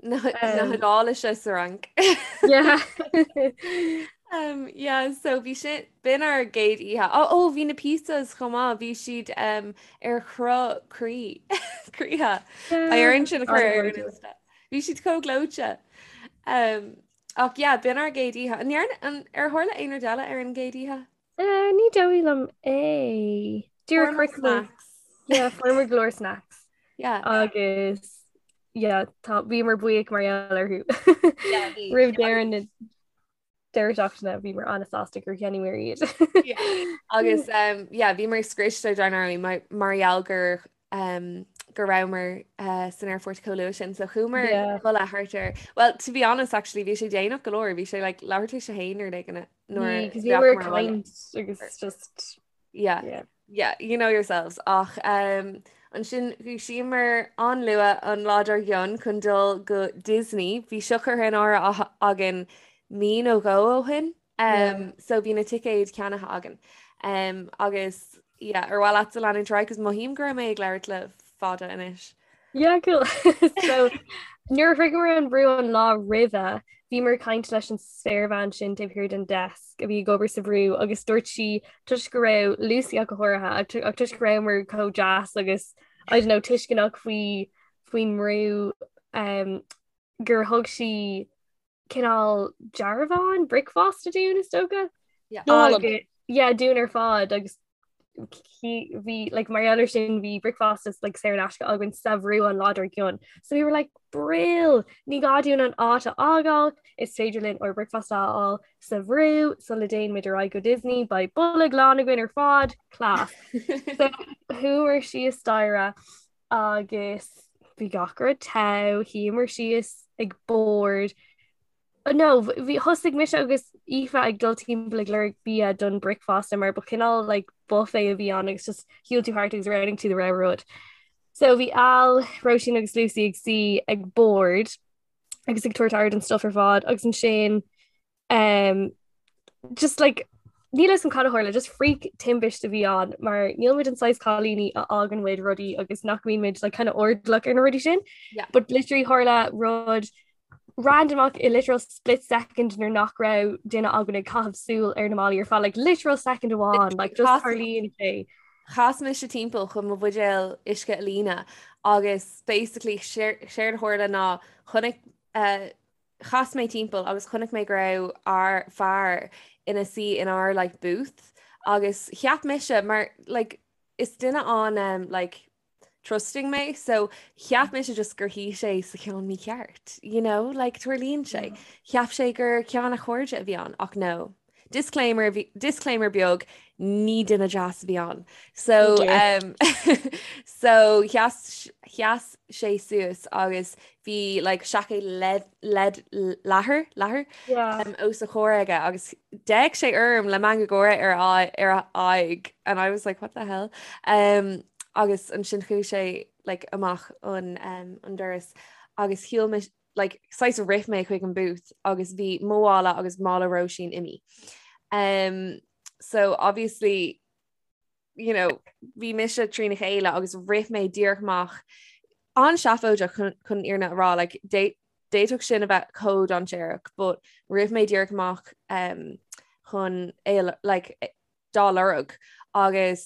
[SPEAKER 4] Na hIodáilise sa Fhrainc.
[SPEAKER 2] Yeah.
[SPEAKER 4] Um, yeah, so bhí sin b'in ár gcéad oíche. Ó ó bhí na pizzas chomh maith, bhí siad um, ar chruth croí croíthe. Beidh orainn sin a chur ar an Insta. Bhí siad chomh gleoite. Um, ach yeah, b'in ár gcéad oíche. An ndearna- an ar tharla aon rud eile ar an gcéad oíche?
[SPEAKER 2] Uh, ní dóigh liom é. Dúirt
[SPEAKER 4] Fuair snacks.
[SPEAKER 2] Yeah, fuair go leor snacks.
[SPEAKER 4] Yeah.
[SPEAKER 2] Agus yeah, tá bhíomar buíoch mar gheall orthu.
[SPEAKER 4] Yeah, bhí.
[SPEAKER 2] Roimh deireadh na deireadh seachtaine bhíomar an-sásta gur cheannaíomar iad.
[SPEAKER 4] Yeah. Agus um, yeah, bhíomar scriosta dar ndóigh mar mar gheall gur um, go rabhamar uh, san aerfort chomh luath sin, so chuamar
[SPEAKER 2] Yeah.
[SPEAKER 4] a chodladh thart ar. Well, to be honest, actually, bhí sé déanach go leor, bhí sé like, leathuair tar éis a haon nó rud éigin nuair
[SPEAKER 2] Because we were kind agus just
[SPEAKER 4] Yeah.
[SPEAKER 2] yeah.
[SPEAKER 4] Yeah, you know yourselves. Ach um, ansin dhúisíomar an-luath an lá dár gcionn chun dul go Disney. Bhí seo curtha in áirithe againn mí nó dhó ó shin. Um, so bhí na ticéid ceannaithe againn. Um, agus yeah, ar mhaith leatsa leanúint ar aghaidh, 'cause mothaím go raibh mé ag labhairt le fada anois.
[SPEAKER 2] Yeah, cool. So nuair a shroicheamar an brú an lá roimhe, bhíomar ag caint leis an spéirbhean sin taobh thiar den desk a bhí ag obair sa bhrú agus dúirt sí toisc go raibh Lucy ach go háirithe ach toisc go rabhamar chomh deas agus I don't know tuisceanach faoi faoin mbrú um, gur thug sí cineál dearbhán bricfeasta dúinn is dócha.
[SPEAKER 4] Yeah.
[SPEAKER 2] Agus yeah, dúinn ar fad agus bhí like, mar gheall air sin bhí bricfeasta like, saor in aisce againn sa bhrú an lá dár gcionn. So we were like brill ní gá dúinn an áit a fhágáil is féidir linn ár bricfeasta a fháil sa bhrú sula dtéann muid ar aghaidh go Disney beidh bolg lán againn ar fad class. So chuamar síos staighre agus bhí gach rud togha, shuíomar síos ag bord. No, bhí thosaigh mise agus Aoife ag dul timpeall ag lorg bia don bricfeasta mar ba chineál like, buffet a bhí ann agus just shiúil tú thart agus roghnaigh tú do rogha rud. So bhí Al, Róisín agus Lucy ag suí ag bord agus ag tabhairt aire don stuff ar fad agus ansin um, just like níl a fhios agam cad a tharla, just freak timpiste a bhí ann mar níl muid an saghas cailíní a fhágann muid rudaí agus nach mbíonn muid like, kind of airdeallach ar na rudaí sin.
[SPEAKER 4] Yeah.
[SPEAKER 2] But literally tharla rud randomach i literal split second nuair nach raibh duine againn ag caitheamh súil ar na málaí ar feadh like literal second amháin like just
[SPEAKER 4] Chas-
[SPEAKER 2] tarlaíonn sé.
[SPEAKER 4] Chas mise timpeall chun mo bhuidéal uisce a líonadh agus basically séard a tharla ná chonaic uh, Chas mé timpeall agus chonaic mé go raibh ár fear ina suí in ár like booth agus cheap mise mar like is duine an um, like trusting mé so cheap mise just gur shuigh sé sa cheann mícheart you know like tarlaíonn sé. Cheap sé gur ceann a chairde a bhí ann ach no. Disclaimer disclaimer beag ní duine deas a bhí ann. So oh um, so sheas sheas sé suas agus bhí like seaicéad lead lead leathair leathair yeah. um, os a chomhair aige agus d'fhéach sé orm le meangadh gáire ar a ar a aghaidh and I was like what the hell um, agus ansin chuaigh sé like amach an um, an doras agus shiúil mé like saghas rith mé chuig an booth agus bhí mo mhála agus mála Róisín imithe. Um, so obviously you know, bhí mise trína chéile agus rith mé díreach amach an-seafóideach chun chun an fhírinne a rá like, d'fhéadfadh sin a bheith chomh dainséarach, but rith mé díreach amach um, chun é like, dá lorg agus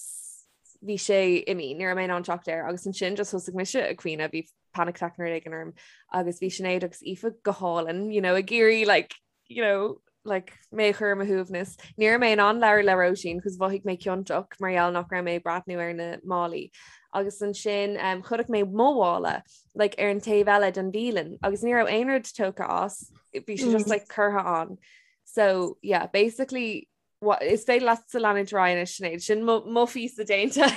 [SPEAKER 4] bhí sé imithe, ní raibh mé in ann teacht air agus ansin just thosaigh mise ag caoineadh, bhí panic attack nó rud éigin orm agus bhí Sinéad agus Aoife go hálainn, you know, ag iarraidh like, you know, like, mé a chur ar mo shuaimhneas. Ní raibh mé in ann labhairt le Róisín cos mhothaigh mé ciontach mar gheall nach raibh mé ag breathnú ar na málaí. Agus ansin um, chonaic mé mo mhála like, ar an taobh eile den bhialann agus ní raibh aon rud tógtha as, bhí sé just mm. like, curtha ann. So yeah, basically What, is féidir leatsa leanúint ar aghaidh anois Sinéad, sin mo phíosa déanta.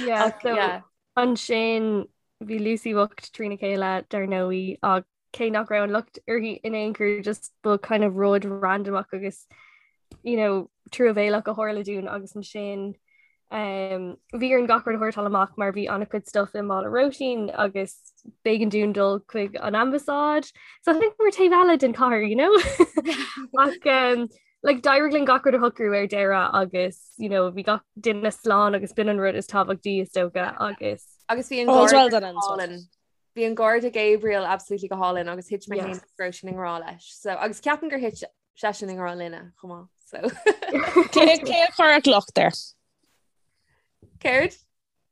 [SPEAKER 2] Yeah, Ach, so yeah. ansin bhí Lucy bocht trína chéile dar ndóigh ach cé nach raibh an locht uirthi in aon chor just ba kind of rud randomach agus you know truamhéalach a tharla dúinn agus ansin um, bhí orainn gach rud a shórtáil amach mar bhí an-chuid stuff i mála Róisín agus b'éigean dúinn dul chuig an ambasáid. So I think we're taobh eile den chathair, you know? Ach um, like, d'éirigh linn gach rud a shocrú ar deireadh agus you know, bhí gach duine slán agus b'in an rud is tábhachtaí is dócha agus
[SPEAKER 4] Agus bhí an All's well done ends well. hálainn. Bhí an garda Gabriel absolutely go hálainn agus thit mé féin agus Róisín i ngrá leis. So agus ceapaim gur thit seisean i ngrá linne chomh maith. So
[SPEAKER 3] Cé cé a chuirfeadh locht air?
[SPEAKER 4] Céard?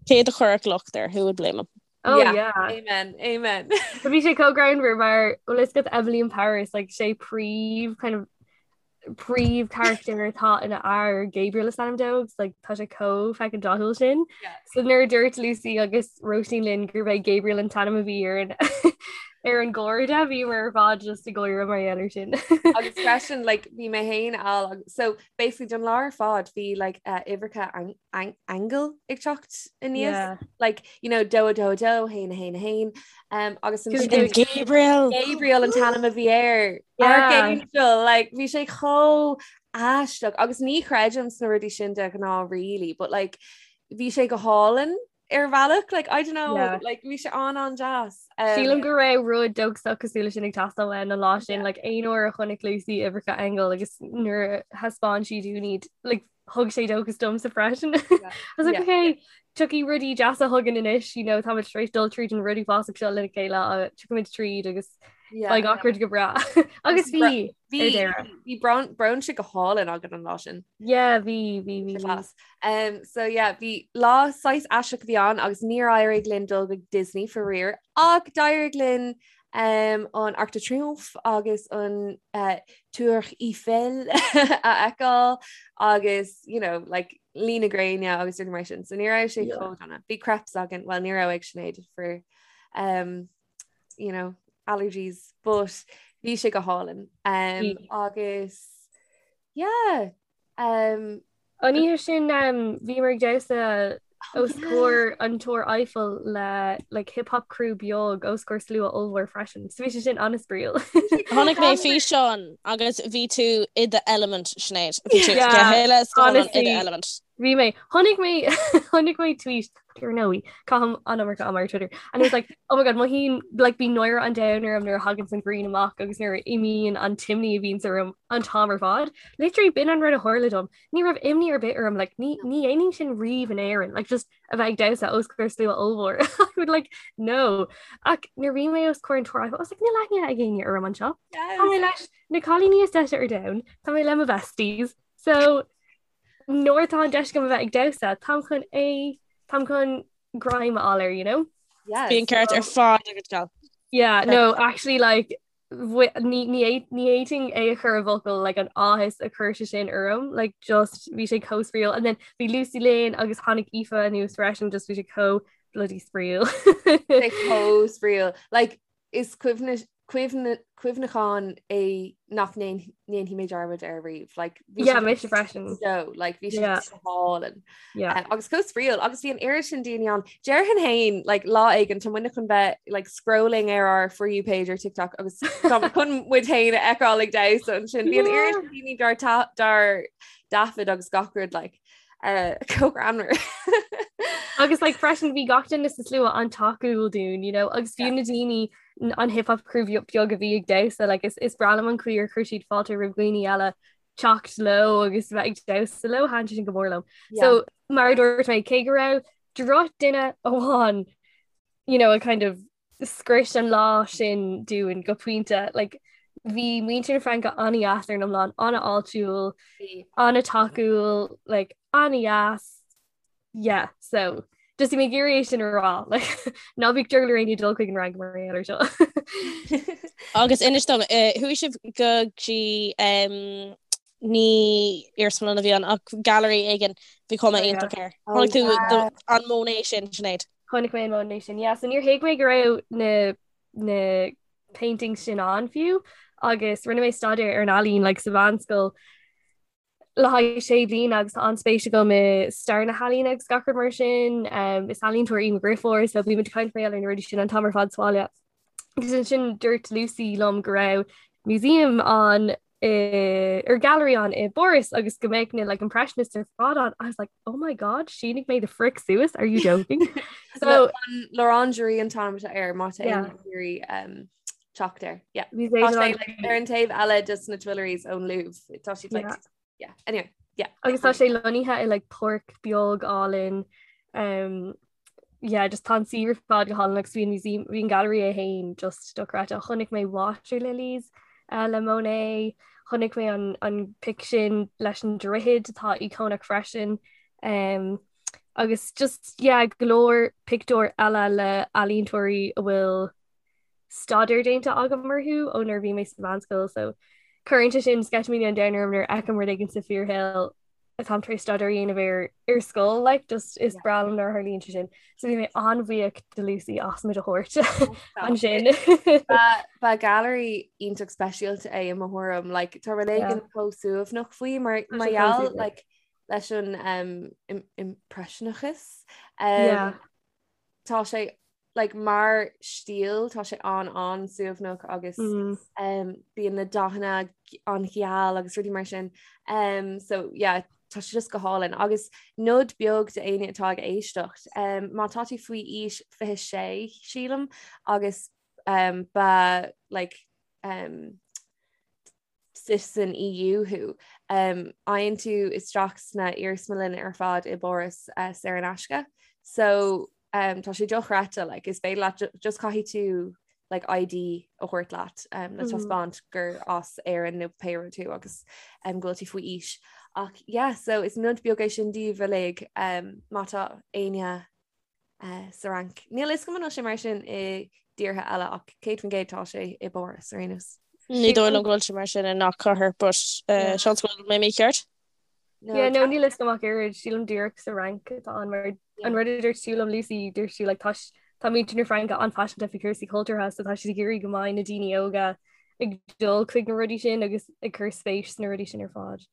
[SPEAKER 3] Cé a chuirfeadh locht air? Who would blame him?
[SPEAKER 2] Oh yeah. yeah.
[SPEAKER 4] Amen. Amen.
[SPEAKER 2] But bhí sé chomh greannmhar mar bhfuil a fhios agat Emily in Paris like sé príomh kind of príomh character atá ina fhear Gabriel is ainm dó agus like tá sé chomh fucking dathúil sin. Yeah. So nuair a dúirt Lucy agus Róisín linn gurb é Gabriel an t-ainm a bhí ar an ar an gharda bhíomar ar fad just ag gáire mar gheall air sin.
[SPEAKER 4] Agus freisin like bhí mé féin al so basically don lá ar fad bhí like uh, uimhreacha ang ang aingeal ag teacht aníos yeah. like you know dó a dó a dó haon a haon a haon um, agus
[SPEAKER 3] an Gabriel
[SPEAKER 4] Gabriel an t-ainm a bhí air yeah. Archangel like bhí sé chomh aisteach agus ní chreidim sna rudaí sin de ghnáth really but like bhí sé go hálainn ar bhealach like I don't know yeah. like bhí sé an an-deas
[SPEAKER 2] um, Sílim go raibh rud dóchasach cosúil leis sin ag teastáil uainn an lá sin like aon uair a chonaic Lucy uimhreacha aingeal agus nuair a thaispeáin sí dúinn iad like thug sé dóchas domsa freisin. I was like, yeah. okay, tiocfaidh rudaí deasa chugainn anois, you know, táimid tar éis dul tríd an rud uafásach seo lena chéile, tiocfaimid tríd agus beidh gach rud go breá. Agus bhí
[SPEAKER 4] bhí brunch go hálainn againn an lá sin.
[SPEAKER 2] Yeah, bhí bhí bhí.
[SPEAKER 4] Class. Um, so yeah, bhí lá saghas aisteach a bhí ann agus níor éirigh linn dul go Disney faraor ach d'éirigh linn um, an Arc de Triomphe agus an uh, Tour Eiffel a fheiceáil agus you know, like, luí na gréine agus rudaí mar sin. So ní raibh sé chomh dona. Bhí crepes againn, well ní raibh ag Sinéad for um, you know, allergies, but bhí sé go hálainn. Um, agus yeah,
[SPEAKER 2] um, An oíche sin um, bhíomar ag damhsa os comhair an Túr Eiffel le like, hip hop crew beag os comhair slua ollmhór freisin. So bhí sé sin an-spraíúil.
[SPEAKER 3] Chonaic mé físeán agus bhí tú i do element Sinéad. Bhí tú go huile is go hiomlán i do element.
[SPEAKER 2] Bhí mé chonaic mé chonaic mé tweet ar ndóigh caithim an iomarca ama ar Twitter and it was like oh my god mothaím like bíonn náire an domhain orm nuair a thagann an ghrian amach agus nuair a imíonn an t-imní a bhíonns orm an t-am ar fad. Literally b'in an rud a tharla dom. Ní raibh imní ar bith orm like ní ní dhéanaim sin riamh in Éirinn like just a bheith ag damhsa os comhair slua ollmhór. I would like no. Ach nuair a bhí mé os comhair an Túir I was like níl aithne ag éinne orm anseo. Tá mé leis na cailíní is deise ar domhan, tá mé le mo besties. So nuair atá an deis agam a bheith ag damhsa, táim chun é, táim chun greim a fháil air, you know?
[SPEAKER 3] Yes. Bhí an ceart ar fad agat
[SPEAKER 2] gal. Yeah, no, actually like ní ní fhéadfainn é a chur i bhfocail like an áthas a chuir sé sin orm, like just bhí sé chomh spraíúil and then bhí Lucy linn agus tháinig Aoife anuas freisin just bhí sé chomh bloody spraíúil.
[SPEAKER 4] Sé chomh spraíúil. Like is cuimhin. Cuimhneachán é nach ndéanfaidh mé dearmad air riamh. Like,
[SPEAKER 2] bhí Yeah, mise freisin.
[SPEAKER 4] So, like, bhí sé
[SPEAKER 2] Yeah.
[SPEAKER 4] go hálainn.
[SPEAKER 2] Yeah.
[SPEAKER 4] Um, agus chomh spraíúil agus bhí an oiread sin daoine ann. Déarfainn féin like, lá éigin tá muidne chun bheith like, scrolling ar ár For You page ar TikTok agus tá muid chun muid féin a fheiceáil ag damhsa ansin. Bhí an
[SPEAKER 2] Yeah.
[SPEAKER 4] oiread sin daoine dár ta- dár dtaifead agus gach rud like, uh, chomh greannmhar.
[SPEAKER 2] Agus like, freisin bhí gach duine sa slua an-tacúil dúinn, you know, agus fiú na daoine an hip hop crew beag a bhí ag damhsa like, is, is breá liom an chaoi ar chuir siad fáilte roimh dhaoine eile teacht leo agus bheith ag damhsa leo thaitin sin go mór liom.
[SPEAKER 4] Yeah.
[SPEAKER 2] So mar a dúirt mé cé go raibh drochdhuine amháin you know, a kind of scrios an lá sin dúinn go pointe like, bhí muintir na Fraince an-deas ar an iomlán an-fháiltiúil an-tacúil like, an-deas Yeah, so just bhí mé ag iarraidh é sin a rá like, ná bíodh drogall ar éinne dul chuig an Fhrainc mar gheall air seo.
[SPEAKER 3] Agus inis dom, eh, chuaigh sibh go dtí em, ní iarsmalann a bhí ann ach gallery éigin bhí cuma
[SPEAKER 2] Oh, yeah.
[SPEAKER 3] iontach air.
[SPEAKER 4] Oh,
[SPEAKER 3] Chonaic tú
[SPEAKER 4] yeah.
[SPEAKER 3] do- an Monet sin, Sinéad?
[SPEAKER 2] Chonaic mé an Monet sin. Yeah, so níor thuig mé go raibh na na paintings sin ann fiú agus rinne mé staidéar ar an ealaín like, sa mheánscoil le haghaidh sé bliana agus tá an-spéis agam i stair na healaíne agus gach rud mar sin. Um, is ealaíontóir í mo dheirfiúr, so bímid ag caint mar gheall ar na rudaí sin an t-am ar fad sa bhaile. Agus ansin dúirt Lucy liom go raibh museum ann i, or gallery ann i bPáras agus go mbeadh na like, impressionists ar fad ann. I was like, oh my god, shínigh mé the frick suas, are you joking?
[SPEAKER 4] So L'Orangerie an t-ainm atá air má tá
[SPEAKER 2] Yeah.
[SPEAKER 4] éinne ag iarraidh um, teacht air. Yeah.
[SPEAKER 2] Bhí
[SPEAKER 4] Tá
[SPEAKER 2] sé
[SPEAKER 4] sé,
[SPEAKER 2] an-
[SPEAKER 4] like, ar an taobh eile de na Tuileries ón Louvre. Tá siad like,
[SPEAKER 2] Yeah.
[SPEAKER 4] yeah. Anyway, yeah.
[SPEAKER 2] Agus tá sé lonnaithe i like páirc beag álainn um, yeah, just tá an suíomh ar fad go hálainn agus bhí an museum bhí an gallery é féin just dochreidte. Chonaic mé Water Lilies uh, le Monet, chonaic mé an, an pic sin leis an droichead atá íocónach freisin. Um, agus just yeah, go leor pictiúr eile le ealaíontóirí a bhfuil staidéar déanta agam orthu ó nuair a bhí mé sa mheánscoil so cuireann sé sin sceitimíní an domhain orm nuair a fheicim rud éigin sa fíorshaol atáim tar éis staidéar a dhéanamh air ar scoil like just is breá liom nuair a tharlaíonn sé sin. So bhí mé an-bhuíoch de Lucy as muid a thabhairt ansin.
[SPEAKER 4] Ba gallery iontach speisialta é i mo thuairim, like, tá rud éigin chomh suaimhneach faoi mar
[SPEAKER 2] Tá
[SPEAKER 4] mar
[SPEAKER 2] sé chomh
[SPEAKER 4] gheall
[SPEAKER 2] suaimhneach.
[SPEAKER 4] like, leis an um, im- impreisineachas. Um,
[SPEAKER 2] Yeah.
[SPEAKER 4] Tá sé like mar stíl tá sé an an-suaimhneach agus mm. um, bíonn na dathanna an-gheal agus rudaí mar sin um, so yeah, tá sé just go hálainn agus nod beag d'éinne atá ag éisteacht um, má tá tú faoi aois 26 sílim agus um, ba like um, citizen EU thú. Faigheann tú isteach sna iarsmalanna ar fad i bPáras saor in aisce. So tá sé dochreidte, like, is féidir leat just caithfidh tú like, ID a thabhairt leat um, le taispeáint gur as Éirinn nó pé rud tú agus um, go bhfuil tú faoi aois. Ach yeah, so is nod beag é sin daoibh uilig um, má tá éinne sa Fhrainc. Níl a fhios agam an bhfuil sé mar sin i dtíortha eile ach 100% tá sé i bPáras ar aon nós.
[SPEAKER 3] Ní dóigh liom go bhfuil sé mar sin i ngach cathair, but seans go bhfuil mé mícheart.
[SPEAKER 2] Yeah, no, níl a fhios agam ach oiread, sílim díreach sa Fhrainc atá ann mar an rud a dúirt tú liom Lucy, dúirt tú like tá tá muintir na Fraince an-phaiseanta faoi chúrsaí cultúrtha so tá siad ag iarraidh go mbeidh na daoine óga ag dul chuig na rudaí sin agus ag cur spéis sna rudaí sin ar fad.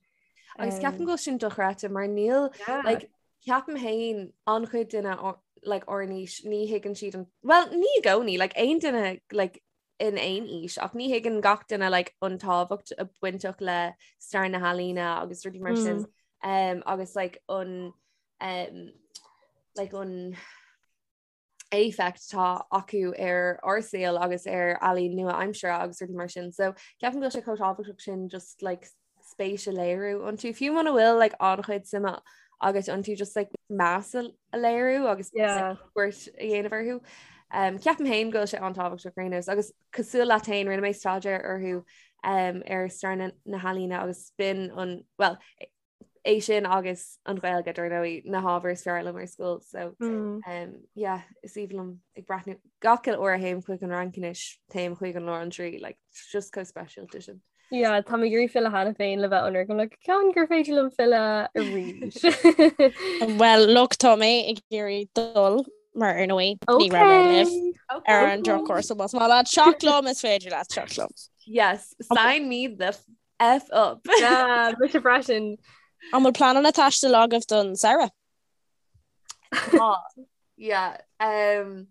[SPEAKER 4] Agus ceapaim go bhfuil sin dochreidte mar níl like Ceapaim féin an-chuid duine like ár n-aois ní thuigeann siad an well ní i gcónaí like aon duine like in aon aois ach ní thuigeann gach duine like an tábhacht a bainteach le stair na healaíne agus rudaí mar sin um, agus like an um, like an éifeacht atá acu ar ár saol agus ar ealaín nua-aimseartha agus rudaí mar sin. So ceapaim go bhfuil sé chomh tábhachtach sin just like spéis a léiriú iontu. Fiú muna bhfuil like an-chuid suime agat iontu just like meas a léiriú agus yeah. cuairt a dhéanamh orthu. Um, ceapaim féin go bhfuil sé an-tábhachtach ar aon nós agus cosúil leat féin rinne mé staidéar orthu um, ar stair na, na healaíne agus b'in an well é sin agus an Ghaeilge dar ndóigh na hábhair is fearr liom ar scoil so mm. um, yeah, is aoibhinn liom ag breathnú gach uile uair a théim chuig an Fhrainc anois téim chuig an L'Orangerie like, just chomh speisialta sin.
[SPEAKER 2] Yeah, tá mé ag iarraidh filleadh cheana féin le bheith ionraic I'm like ceann gur féidir liom filleadh arís.
[SPEAKER 3] Well, look tá mé ag iarraidh dul. Mar ar ndóigh, ní raibh mé libh ar an drochuair, so más maith leat teacht liom is féidir leat teacht liom.
[SPEAKER 4] Yes, sign me the F up.
[SPEAKER 2] Yeah, mise freisin.
[SPEAKER 3] An bhfuil pleananna taistil agaibh don samhradh?
[SPEAKER 4] Tá. Yeah. Um,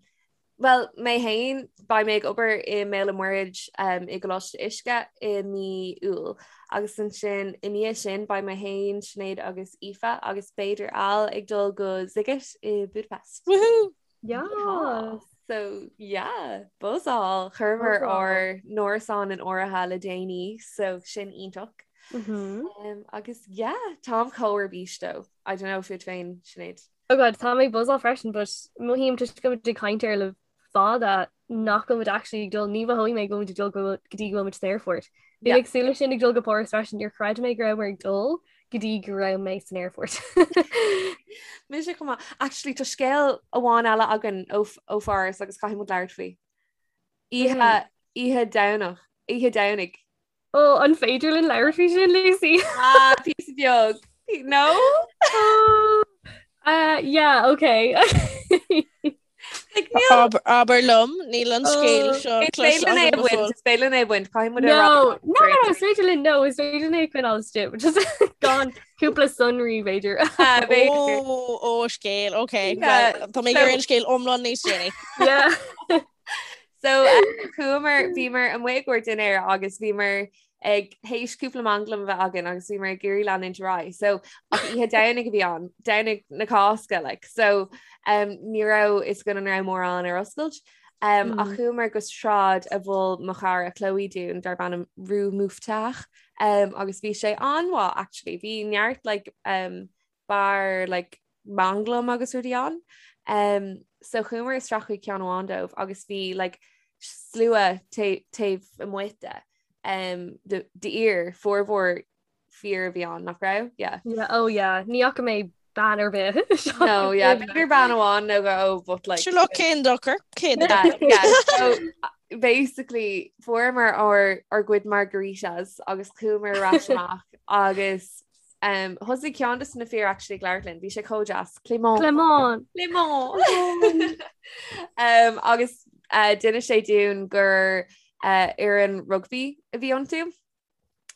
[SPEAKER 4] Well, mé féin, beidh mé ag obair i mBéal an Mhuirthead um, i gColáiste Uisce i mí Iúil. Agus ansin i ndiaidh sin beidh mé féin, Sinéad agus Aoife agus b'fhéidir Al ag dul go Sziget i Budapest.
[SPEAKER 3] Woohoo!
[SPEAKER 2] Yeah.
[SPEAKER 4] So yeah, buzzáil. Chuireamar ár n-árasán in áirithe le déanaí, so sin iontach.
[SPEAKER 2] Mm -hmm.
[SPEAKER 4] um, agus yeah, táim chomh ar bís though. I don't know fút féin, Sinéad.
[SPEAKER 2] Oh God, tá mé ag buzzáil freisin, but mothaím toisc go bhfuil muid ag caint air le fada nach bhfuil muid actually ag dul, ní mhothóidh mé go bhfuil muid ag dul go go dtí go bhfuil muid san aerfort. Bhí mé ag súil leis sin ag dul go Páras freisin, níor chreid mé go rabhamar ag dul go dtí go raibh mé san aerfort.
[SPEAKER 4] Mise chomh maith. Actually, tá scéal amháin eile againn ó ó Pháras agus caithfidh muid labhairt faoi. Oíche oíche Domhnach, oíche Domhnaigh.
[SPEAKER 2] Ó, an féidir linn labhairt faoi sin, Lucy?
[SPEAKER 4] Ah, píosa beag. No?
[SPEAKER 2] Oh, uh, yeah, okay.
[SPEAKER 4] Like, níl-
[SPEAKER 3] Abair liom, níl an scéal
[SPEAKER 2] Oh.
[SPEAKER 3] seo
[SPEAKER 4] Is féidir linn é a bhaint, is féidir linn é a bhaint, caithfidh muid a rá.
[SPEAKER 2] No, no, no, no, is féidir linn, no, is féidir linn é a choinneáil istigh, which is gan cúpla sonraí b'fhéidir.
[SPEAKER 4] Ah, b'fhéidir.
[SPEAKER 3] Ó, ó, scéal, ok.
[SPEAKER 4] Yeah,
[SPEAKER 3] Well, Tá mé
[SPEAKER 4] so-
[SPEAKER 3] ag iarraidh an scéal iomlán níos déanaí.
[SPEAKER 2] Yeah.
[SPEAKER 4] So chuamar bhíomar amuigh i gcomhair dinnéir agus bhíomar ag théis cúpla manglam a bheith againn agus bhíomar ag iarraidh leanúint ar aghaidh. So ach oíche Domhnaigh a bhí ann, Domhnach na Cásca like. So um, ní raibh fhios againn an raibh mórán ar oscailt. Um, mm. Ach chuamar go sráid a mhol mo chara Chloe dúinn darb ainm Rue Mouffetard um, agus bhí sé an-mhaith actually. Bhí neart like, um, beár like manglam agus rudaí ann. Um, so chuamar isteach chuig ceann amháin dóibh agus bhí like, slua taobh amuigh de um, d'fhir formhór fir a bhí ann nach raibh?
[SPEAKER 2] Yeah. Yeah, oh yeah, ní fhaca mé bean ar bith.
[SPEAKER 4] No, yeah, b'fhéidir bean amháin nó dhó but like
[SPEAKER 3] Sure look cén dochar cén
[SPEAKER 4] yeah, yeah. So basically fuaireamar ár ár gcuid margaritas agus chuamar ar ais amach agus Um, thosaigh ceann de na fir actually ag labhairt linn, bhí sé chomh deas. Clément.
[SPEAKER 2] Clément.
[SPEAKER 4] Clément. um, agus uh, d'inis sé dúinn gur uh, fhoireann rugby a bhí iontu.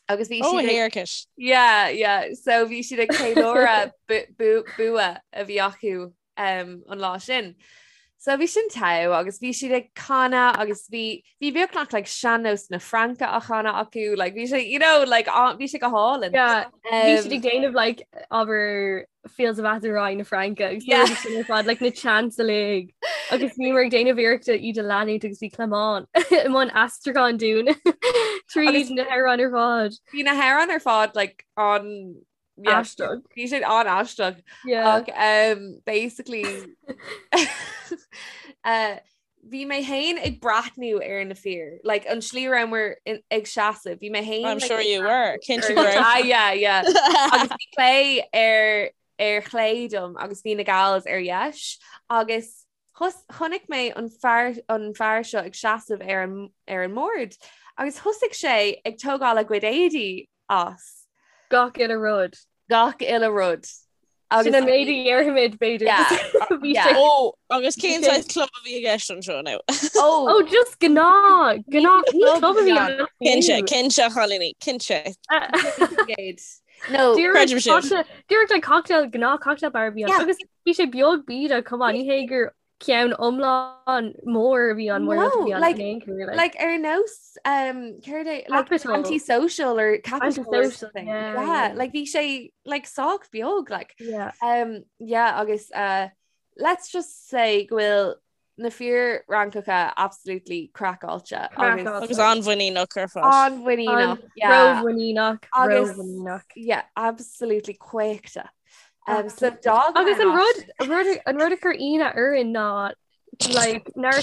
[SPEAKER 4] Agus bhí
[SPEAKER 3] Oh,
[SPEAKER 4] siad ag-
[SPEAKER 3] héarcais.
[SPEAKER 4] Yeah, yeah. So bhí siad ag ceiliúradh bu- bu- bua a bhí acu um, an lá sin. So bhí sin togha agus bhí siad ag canadh agus bhí bhí beagnach like sean-nós na Fraince á chanadh acu, like bhí sé you know like bhí sé go hálainn.
[SPEAKER 2] Yeah, bhí siad ag déanamh like abair Fields of Athenry na Fraince agus yeah. sin ar fad like na chants uilig agus bhíomar ag déanamh iarrachta iad a leanúint agus bhí Clément i mbun aistriúcháin dúinn tríd na hamhráin ar fad.
[SPEAKER 4] Bhí na hamhráin ar fad like an
[SPEAKER 2] Aisteach.
[SPEAKER 4] Bhí siad an-aisteach. Ach um, basically uh, bhí mé féin ag breathnú ar na fir, like an slí rabhamar ag seasamh, bhí mé féin
[SPEAKER 3] I'm sure you were. Cinnte go raibh.
[SPEAKER 4] Ah, yeah, yeah. Agus bhí Clé ar ar chlé dom agus bhí na gals ar dheis agus chonaic mé an fear an fear seo ag seasamh ar an ar an mbord agus thosaigh sé ag tógáil a gcuid éadaí as.
[SPEAKER 2] Gach uile rud.
[SPEAKER 4] Gach uile rud.
[SPEAKER 2] Agus Sin an méid a dhéarfaimid b'fhéidir. Bhí sé.
[SPEAKER 3] Ó, agus cén saghas club a bhí i gceist anseo now?
[SPEAKER 4] Ó,
[SPEAKER 2] Ó, just gnáth, gnáth ní club a bhí ann.
[SPEAKER 3] Cinnte, cinnte, a chailíní, cinnte.
[SPEAKER 4] No,
[SPEAKER 3] creidim sin.
[SPEAKER 2] Dúirt like cocktail, gnáth cocktail bar a bhí ann. Agus bhí sé beag bídeach, come on, ní hé gur ceann iomlán mór a bhí ann mór
[SPEAKER 4] No,
[SPEAKER 2] bhí ann
[SPEAKER 4] like-
[SPEAKER 2] in aon chor, like.
[SPEAKER 4] like ar nós um, céard é like
[SPEAKER 2] Capital.
[SPEAKER 4] antisocial or capital or
[SPEAKER 2] Antisocial,
[SPEAKER 4] something.
[SPEAKER 2] yeah,
[SPEAKER 4] Yeah,
[SPEAKER 2] yeah.
[SPEAKER 4] like bhí sé like sách beag like
[SPEAKER 2] Yeah.
[SPEAKER 4] um, yeah agus uh, let's just say go bhfuil na fir Fhrancacha absolutely craiceáilte
[SPEAKER 2] Craiceáilte.
[SPEAKER 3] Agus an-mhuiníneach ar fad.
[SPEAKER 4] an-mhuiníneach yeah.
[SPEAKER 2] Rómhuiníneach,
[SPEAKER 4] Agus-
[SPEAKER 2] rómhuiníneach.
[SPEAKER 4] yeah absolutely caochta. Um, so dog
[SPEAKER 2] Agus an rud an rud an rud a chuir ionadh orainn ná like nár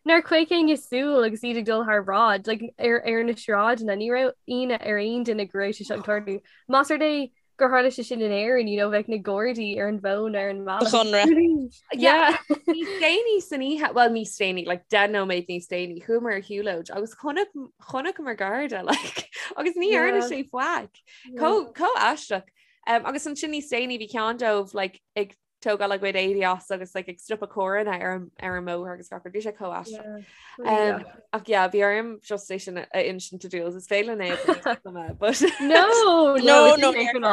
[SPEAKER 2] nár chaoch éinne súil agus iad ag dul thar bráid like ar ar na sráideanna ní raibh ionadh ar aon duine go raibh sé seo ag tarlú. Más rud é gur tharla sé sin in Éirinn you know bheadh na Gardaí ar an bhfón ar an mbealach.
[SPEAKER 3] Conradh.
[SPEAKER 2] Yeah.
[SPEAKER 4] Níos déanaí
[SPEAKER 2] san
[SPEAKER 4] oíche, well níos déanaí, like 10 nóiméad níos déanaí, chuamar ar shiúlóid agus chonaic chonaiceamar garda like agus ní dhearna
[SPEAKER 2] Yeah.
[SPEAKER 4] sé faic. Chomh chomh aisteach. Um, agus ansin níos déanaí bhí ceann dóibh like, ag tógáil a gcuid éadaí as agus like ag stopadh carranna ar an ar an mbóthar agus gach rud. Bhí sé chomh aisteach. Um, ach yeah, bhí orm just é sin a insint do Jules. Is féidir linn é
[SPEAKER 2] but No,
[SPEAKER 3] no, no, no,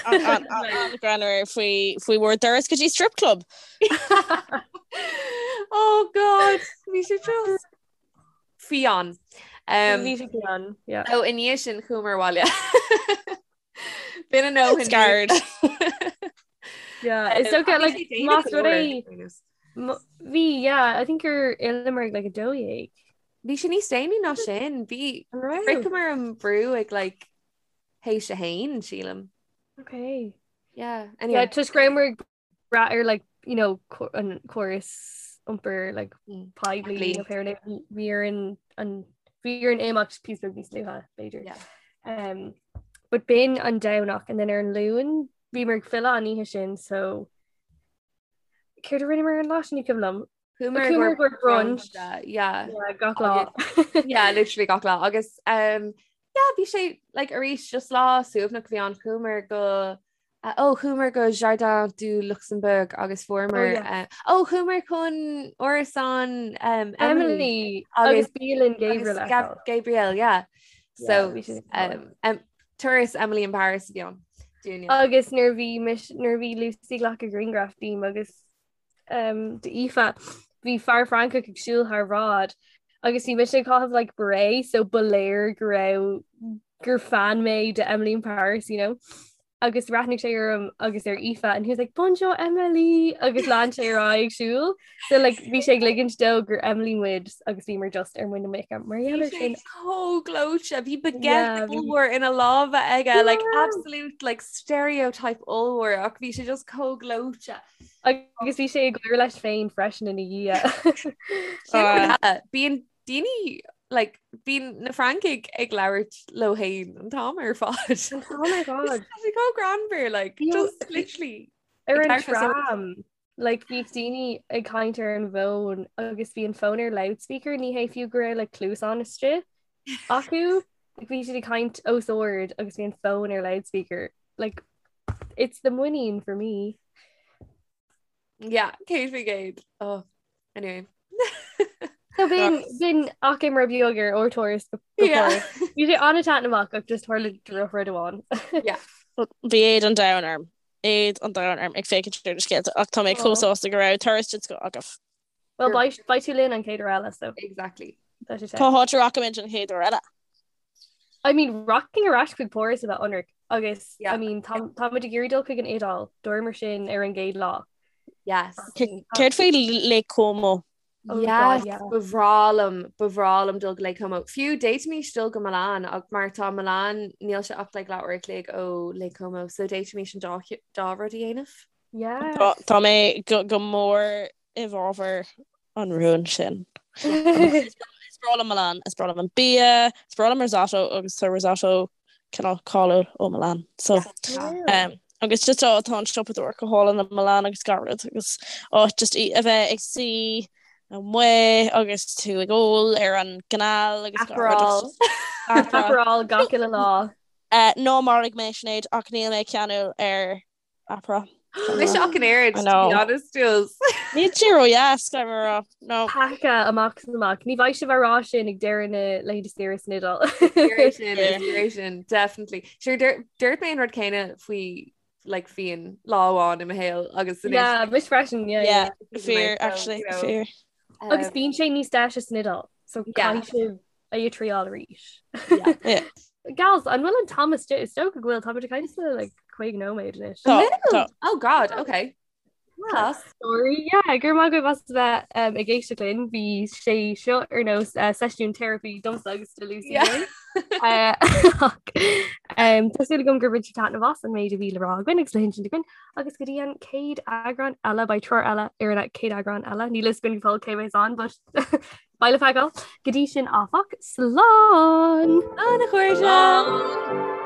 [SPEAKER 3] An-ghreannmhar faoi faoi bhur dturas go dtí strip club.
[SPEAKER 4] Oh God, bhí sé just fiáin.
[SPEAKER 2] Um, Bhí sé fiáin,
[SPEAKER 4] yeah. Ó i ndiaidh sin chuamar abhaile. B'in a ndóthain.
[SPEAKER 3] Scared.
[SPEAKER 2] Yeah, it's okay, like, más rud é bhí, yeah, I think gur fhilleamar ag like 12.
[SPEAKER 4] Bhí sé níos déanaí ná sin, bhí shroicheamar an brú ag like théis a haon, sílim.
[SPEAKER 2] Okay.
[SPEAKER 4] Yeah, anyway.
[SPEAKER 2] Yeah, toisc go rabhamar ag brath ar like, you know, an córas iompair like mm. poiblí nó pé bhí orainn an bhí orainn imeacht píosa beag níos luaithe b'fhéidir.
[SPEAKER 4] Yeah.
[SPEAKER 2] Um, but b'in an Domhnach and then ar an Luan bhíomar ag filleadh an oíche sin so céard a rinneamar an lá sin ní cuimhin liom.
[SPEAKER 4] Chuamar
[SPEAKER 2] go brunch.
[SPEAKER 4] Yeah.
[SPEAKER 2] Yeah, gach lá.
[SPEAKER 4] Yeah, literally gach lá. Agus um, yeah, bhí sé like arís just lá suaimhneach bhí ann chuamar go uh, oh, chuamar go Jardin du Luxembourg agus fuaireamar
[SPEAKER 2] Oh, yeah.
[SPEAKER 4] uh, oh, chuamar chun árasán um,
[SPEAKER 2] Emily
[SPEAKER 4] Emily
[SPEAKER 2] agus bialann Gabriel
[SPEAKER 4] agus Gab Gabriel, yeah. So
[SPEAKER 2] bhí sé
[SPEAKER 4] um, um, turas Emily in Paris a bhí ann. Dúinne.
[SPEAKER 2] Agus nuair bhí mis nuair bhí Lucy ag glacadh grianghraf díom agus um, d'Aoife, bhí fear Francach ag siúl thar bhráid agus bhí mise ag caitheamh like beret so ba léir go raibh gur fan mé de Emily in Paris, you know. Agus bhreathnaigh sé orm agus ar Aoife and he was like Bonjour Emily agus lean sé ar aghaidh ag siúl. So like bhí sé ag ligint dó gur Emily muid agus bhíomar just ar muin na muice mar
[SPEAKER 4] gheall ar sin. Chomh gleoite, bhí baguette ollmhór ina lámha aige, like absolute like stereotype ollmhór ach bhí sé just chomh gleoite.
[SPEAKER 2] Agus bhí sé ag gáire leis féin freisin ina
[SPEAKER 4] dhiaidh. Bíonn daoine like, bíonn na Francaigh ag labhairt leo féin an t-am ar fad.
[SPEAKER 2] An t-am ar fad.
[SPEAKER 4] Tá sé chomh greannmhar, like, just literally.
[SPEAKER 2] Ar an tram, like, bhí daoine ag caint ar an bhfón agus bhí an fón ar loudspeaker, ní hé fiú go raibh like, cluasáin istigh acu. Like, bhí siad ag caint os ard agus bhí an fón ar loudspeaker. Like, it's the muinín for me.
[SPEAKER 4] Yeah, 100%. Oh, anyway.
[SPEAKER 2] So b'in b'in achoimre beag ar ár dturas go
[SPEAKER 4] Yeah.
[SPEAKER 2] Bhí sé an-taitneamhach ach just tharla drochrud amháin.
[SPEAKER 4] Yeah.
[SPEAKER 3] Bhí éad an domhain orm. Éad an domhain orm ag féachaint ar na scéalta ach tá mé chomh sásta go raibh turas den scoth agaibh.
[SPEAKER 2] Well beidh beidh tú linn an chéad uair eile so.
[SPEAKER 4] Exactly.
[SPEAKER 2] Tá sé
[SPEAKER 3] Cá háit a rachaimid an chéad uair eile?
[SPEAKER 2] I mean rachainn ar ais chuig Páras a bheith ionraic agus
[SPEAKER 4] Yeah.
[SPEAKER 2] I mean tá táimid ag iarraidh dul chuig an Iodáil dúramar sin ar an gcéad lá.
[SPEAKER 4] Yes.
[SPEAKER 3] Céard faoi Lake Como?
[SPEAKER 2] Oh
[SPEAKER 4] Yes,
[SPEAKER 2] God, yeah.
[SPEAKER 4] ba bhreá liom, ba bhreá liom dul go Lake Como. Fiú d'fhéadfaimis dul go Milan ach mar tá Milan níl sé ach like leathuair a chloig ó Lake Como, so d'fhéadfaimis an dá dá rud a dhéanamh.
[SPEAKER 2] Yes.
[SPEAKER 3] Tá mé go mór i bhfabhar an rúin sin. Is breá liom Milan, is breá liom an bia, is breá liom risotto agus tá risotto cineál cáiliúil ó Milan. So um, agus just tá tá an siopadóireacht go hálainn i Milan agus gach rud agus áit just í a bheith ag suí amuigh agus tú ag ól ar an gcanal agus gach rud
[SPEAKER 4] Aperol.
[SPEAKER 3] Aperol.
[SPEAKER 2] Aperol gach uile lá.
[SPEAKER 3] Uh, ná maraigh mé Sinéad ach níl mé ceanúil ar Aperol.
[SPEAKER 4] Mise ach an oiread,
[SPEAKER 3] I
[SPEAKER 4] to
[SPEAKER 3] know.
[SPEAKER 4] be honest, Jules.
[SPEAKER 3] Níl sé ródheas, caithfidh mé a rá. No.
[SPEAKER 2] Peaca amach is amach. Ní bheidh sibh á rá sin ag deireadh na laethanta saoire san Iodáil.
[SPEAKER 4] Fíor sin, is fíor sin, definitely. Sure, dúirt mé an rud céanna faoi like fíon lá amháin i mo shaol agus anois
[SPEAKER 2] Yeah, mise freisin, yeah,
[SPEAKER 3] Yeah,
[SPEAKER 2] yeah.
[SPEAKER 3] fíor,
[SPEAKER 4] So,
[SPEAKER 3] actually,
[SPEAKER 4] you know.
[SPEAKER 3] fíor.
[SPEAKER 2] Agus bíonn sé níos deise san Iodáil, so
[SPEAKER 4] Yeah.
[SPEAKER 2] caithfidh sibh é a thriáil arís.
[SPEAKER 4] Yeah.
[SPEAKER 3] Yeah.
[SPEAKER 2] Gals, an bhfuil an t-am istigh? Is dócha go bhfuil táimid ag caint le like 50 nóiméad anois.
[SPEAKER 3] Tá, tá.
[SPEAKER 4] Oh God, okay. Class.
[SPEAKER 2] Sorry, yeah, go raibh maith agaibh as a bheith um, ag éisteacht linn, bhí sé seo ar nós uh, seisiún therapy domsa agus do Lucy.
[SPEAKER 4] Yeah.
[SPEAKER 2] Uh, ach, um, Tá súil agam gur bhain sibh taitneamh as an méid a bhí le rá againn agus le hinsint againn agus go dtí an chéad eagrán eile beidh triúr eile ar an chéad eagrán eile níl a fhios againn go fóill cé bheas ann but beidh le feiceáil. Go dtí sin áfach, slán!
[SPEAKER 4] Slán a chairde!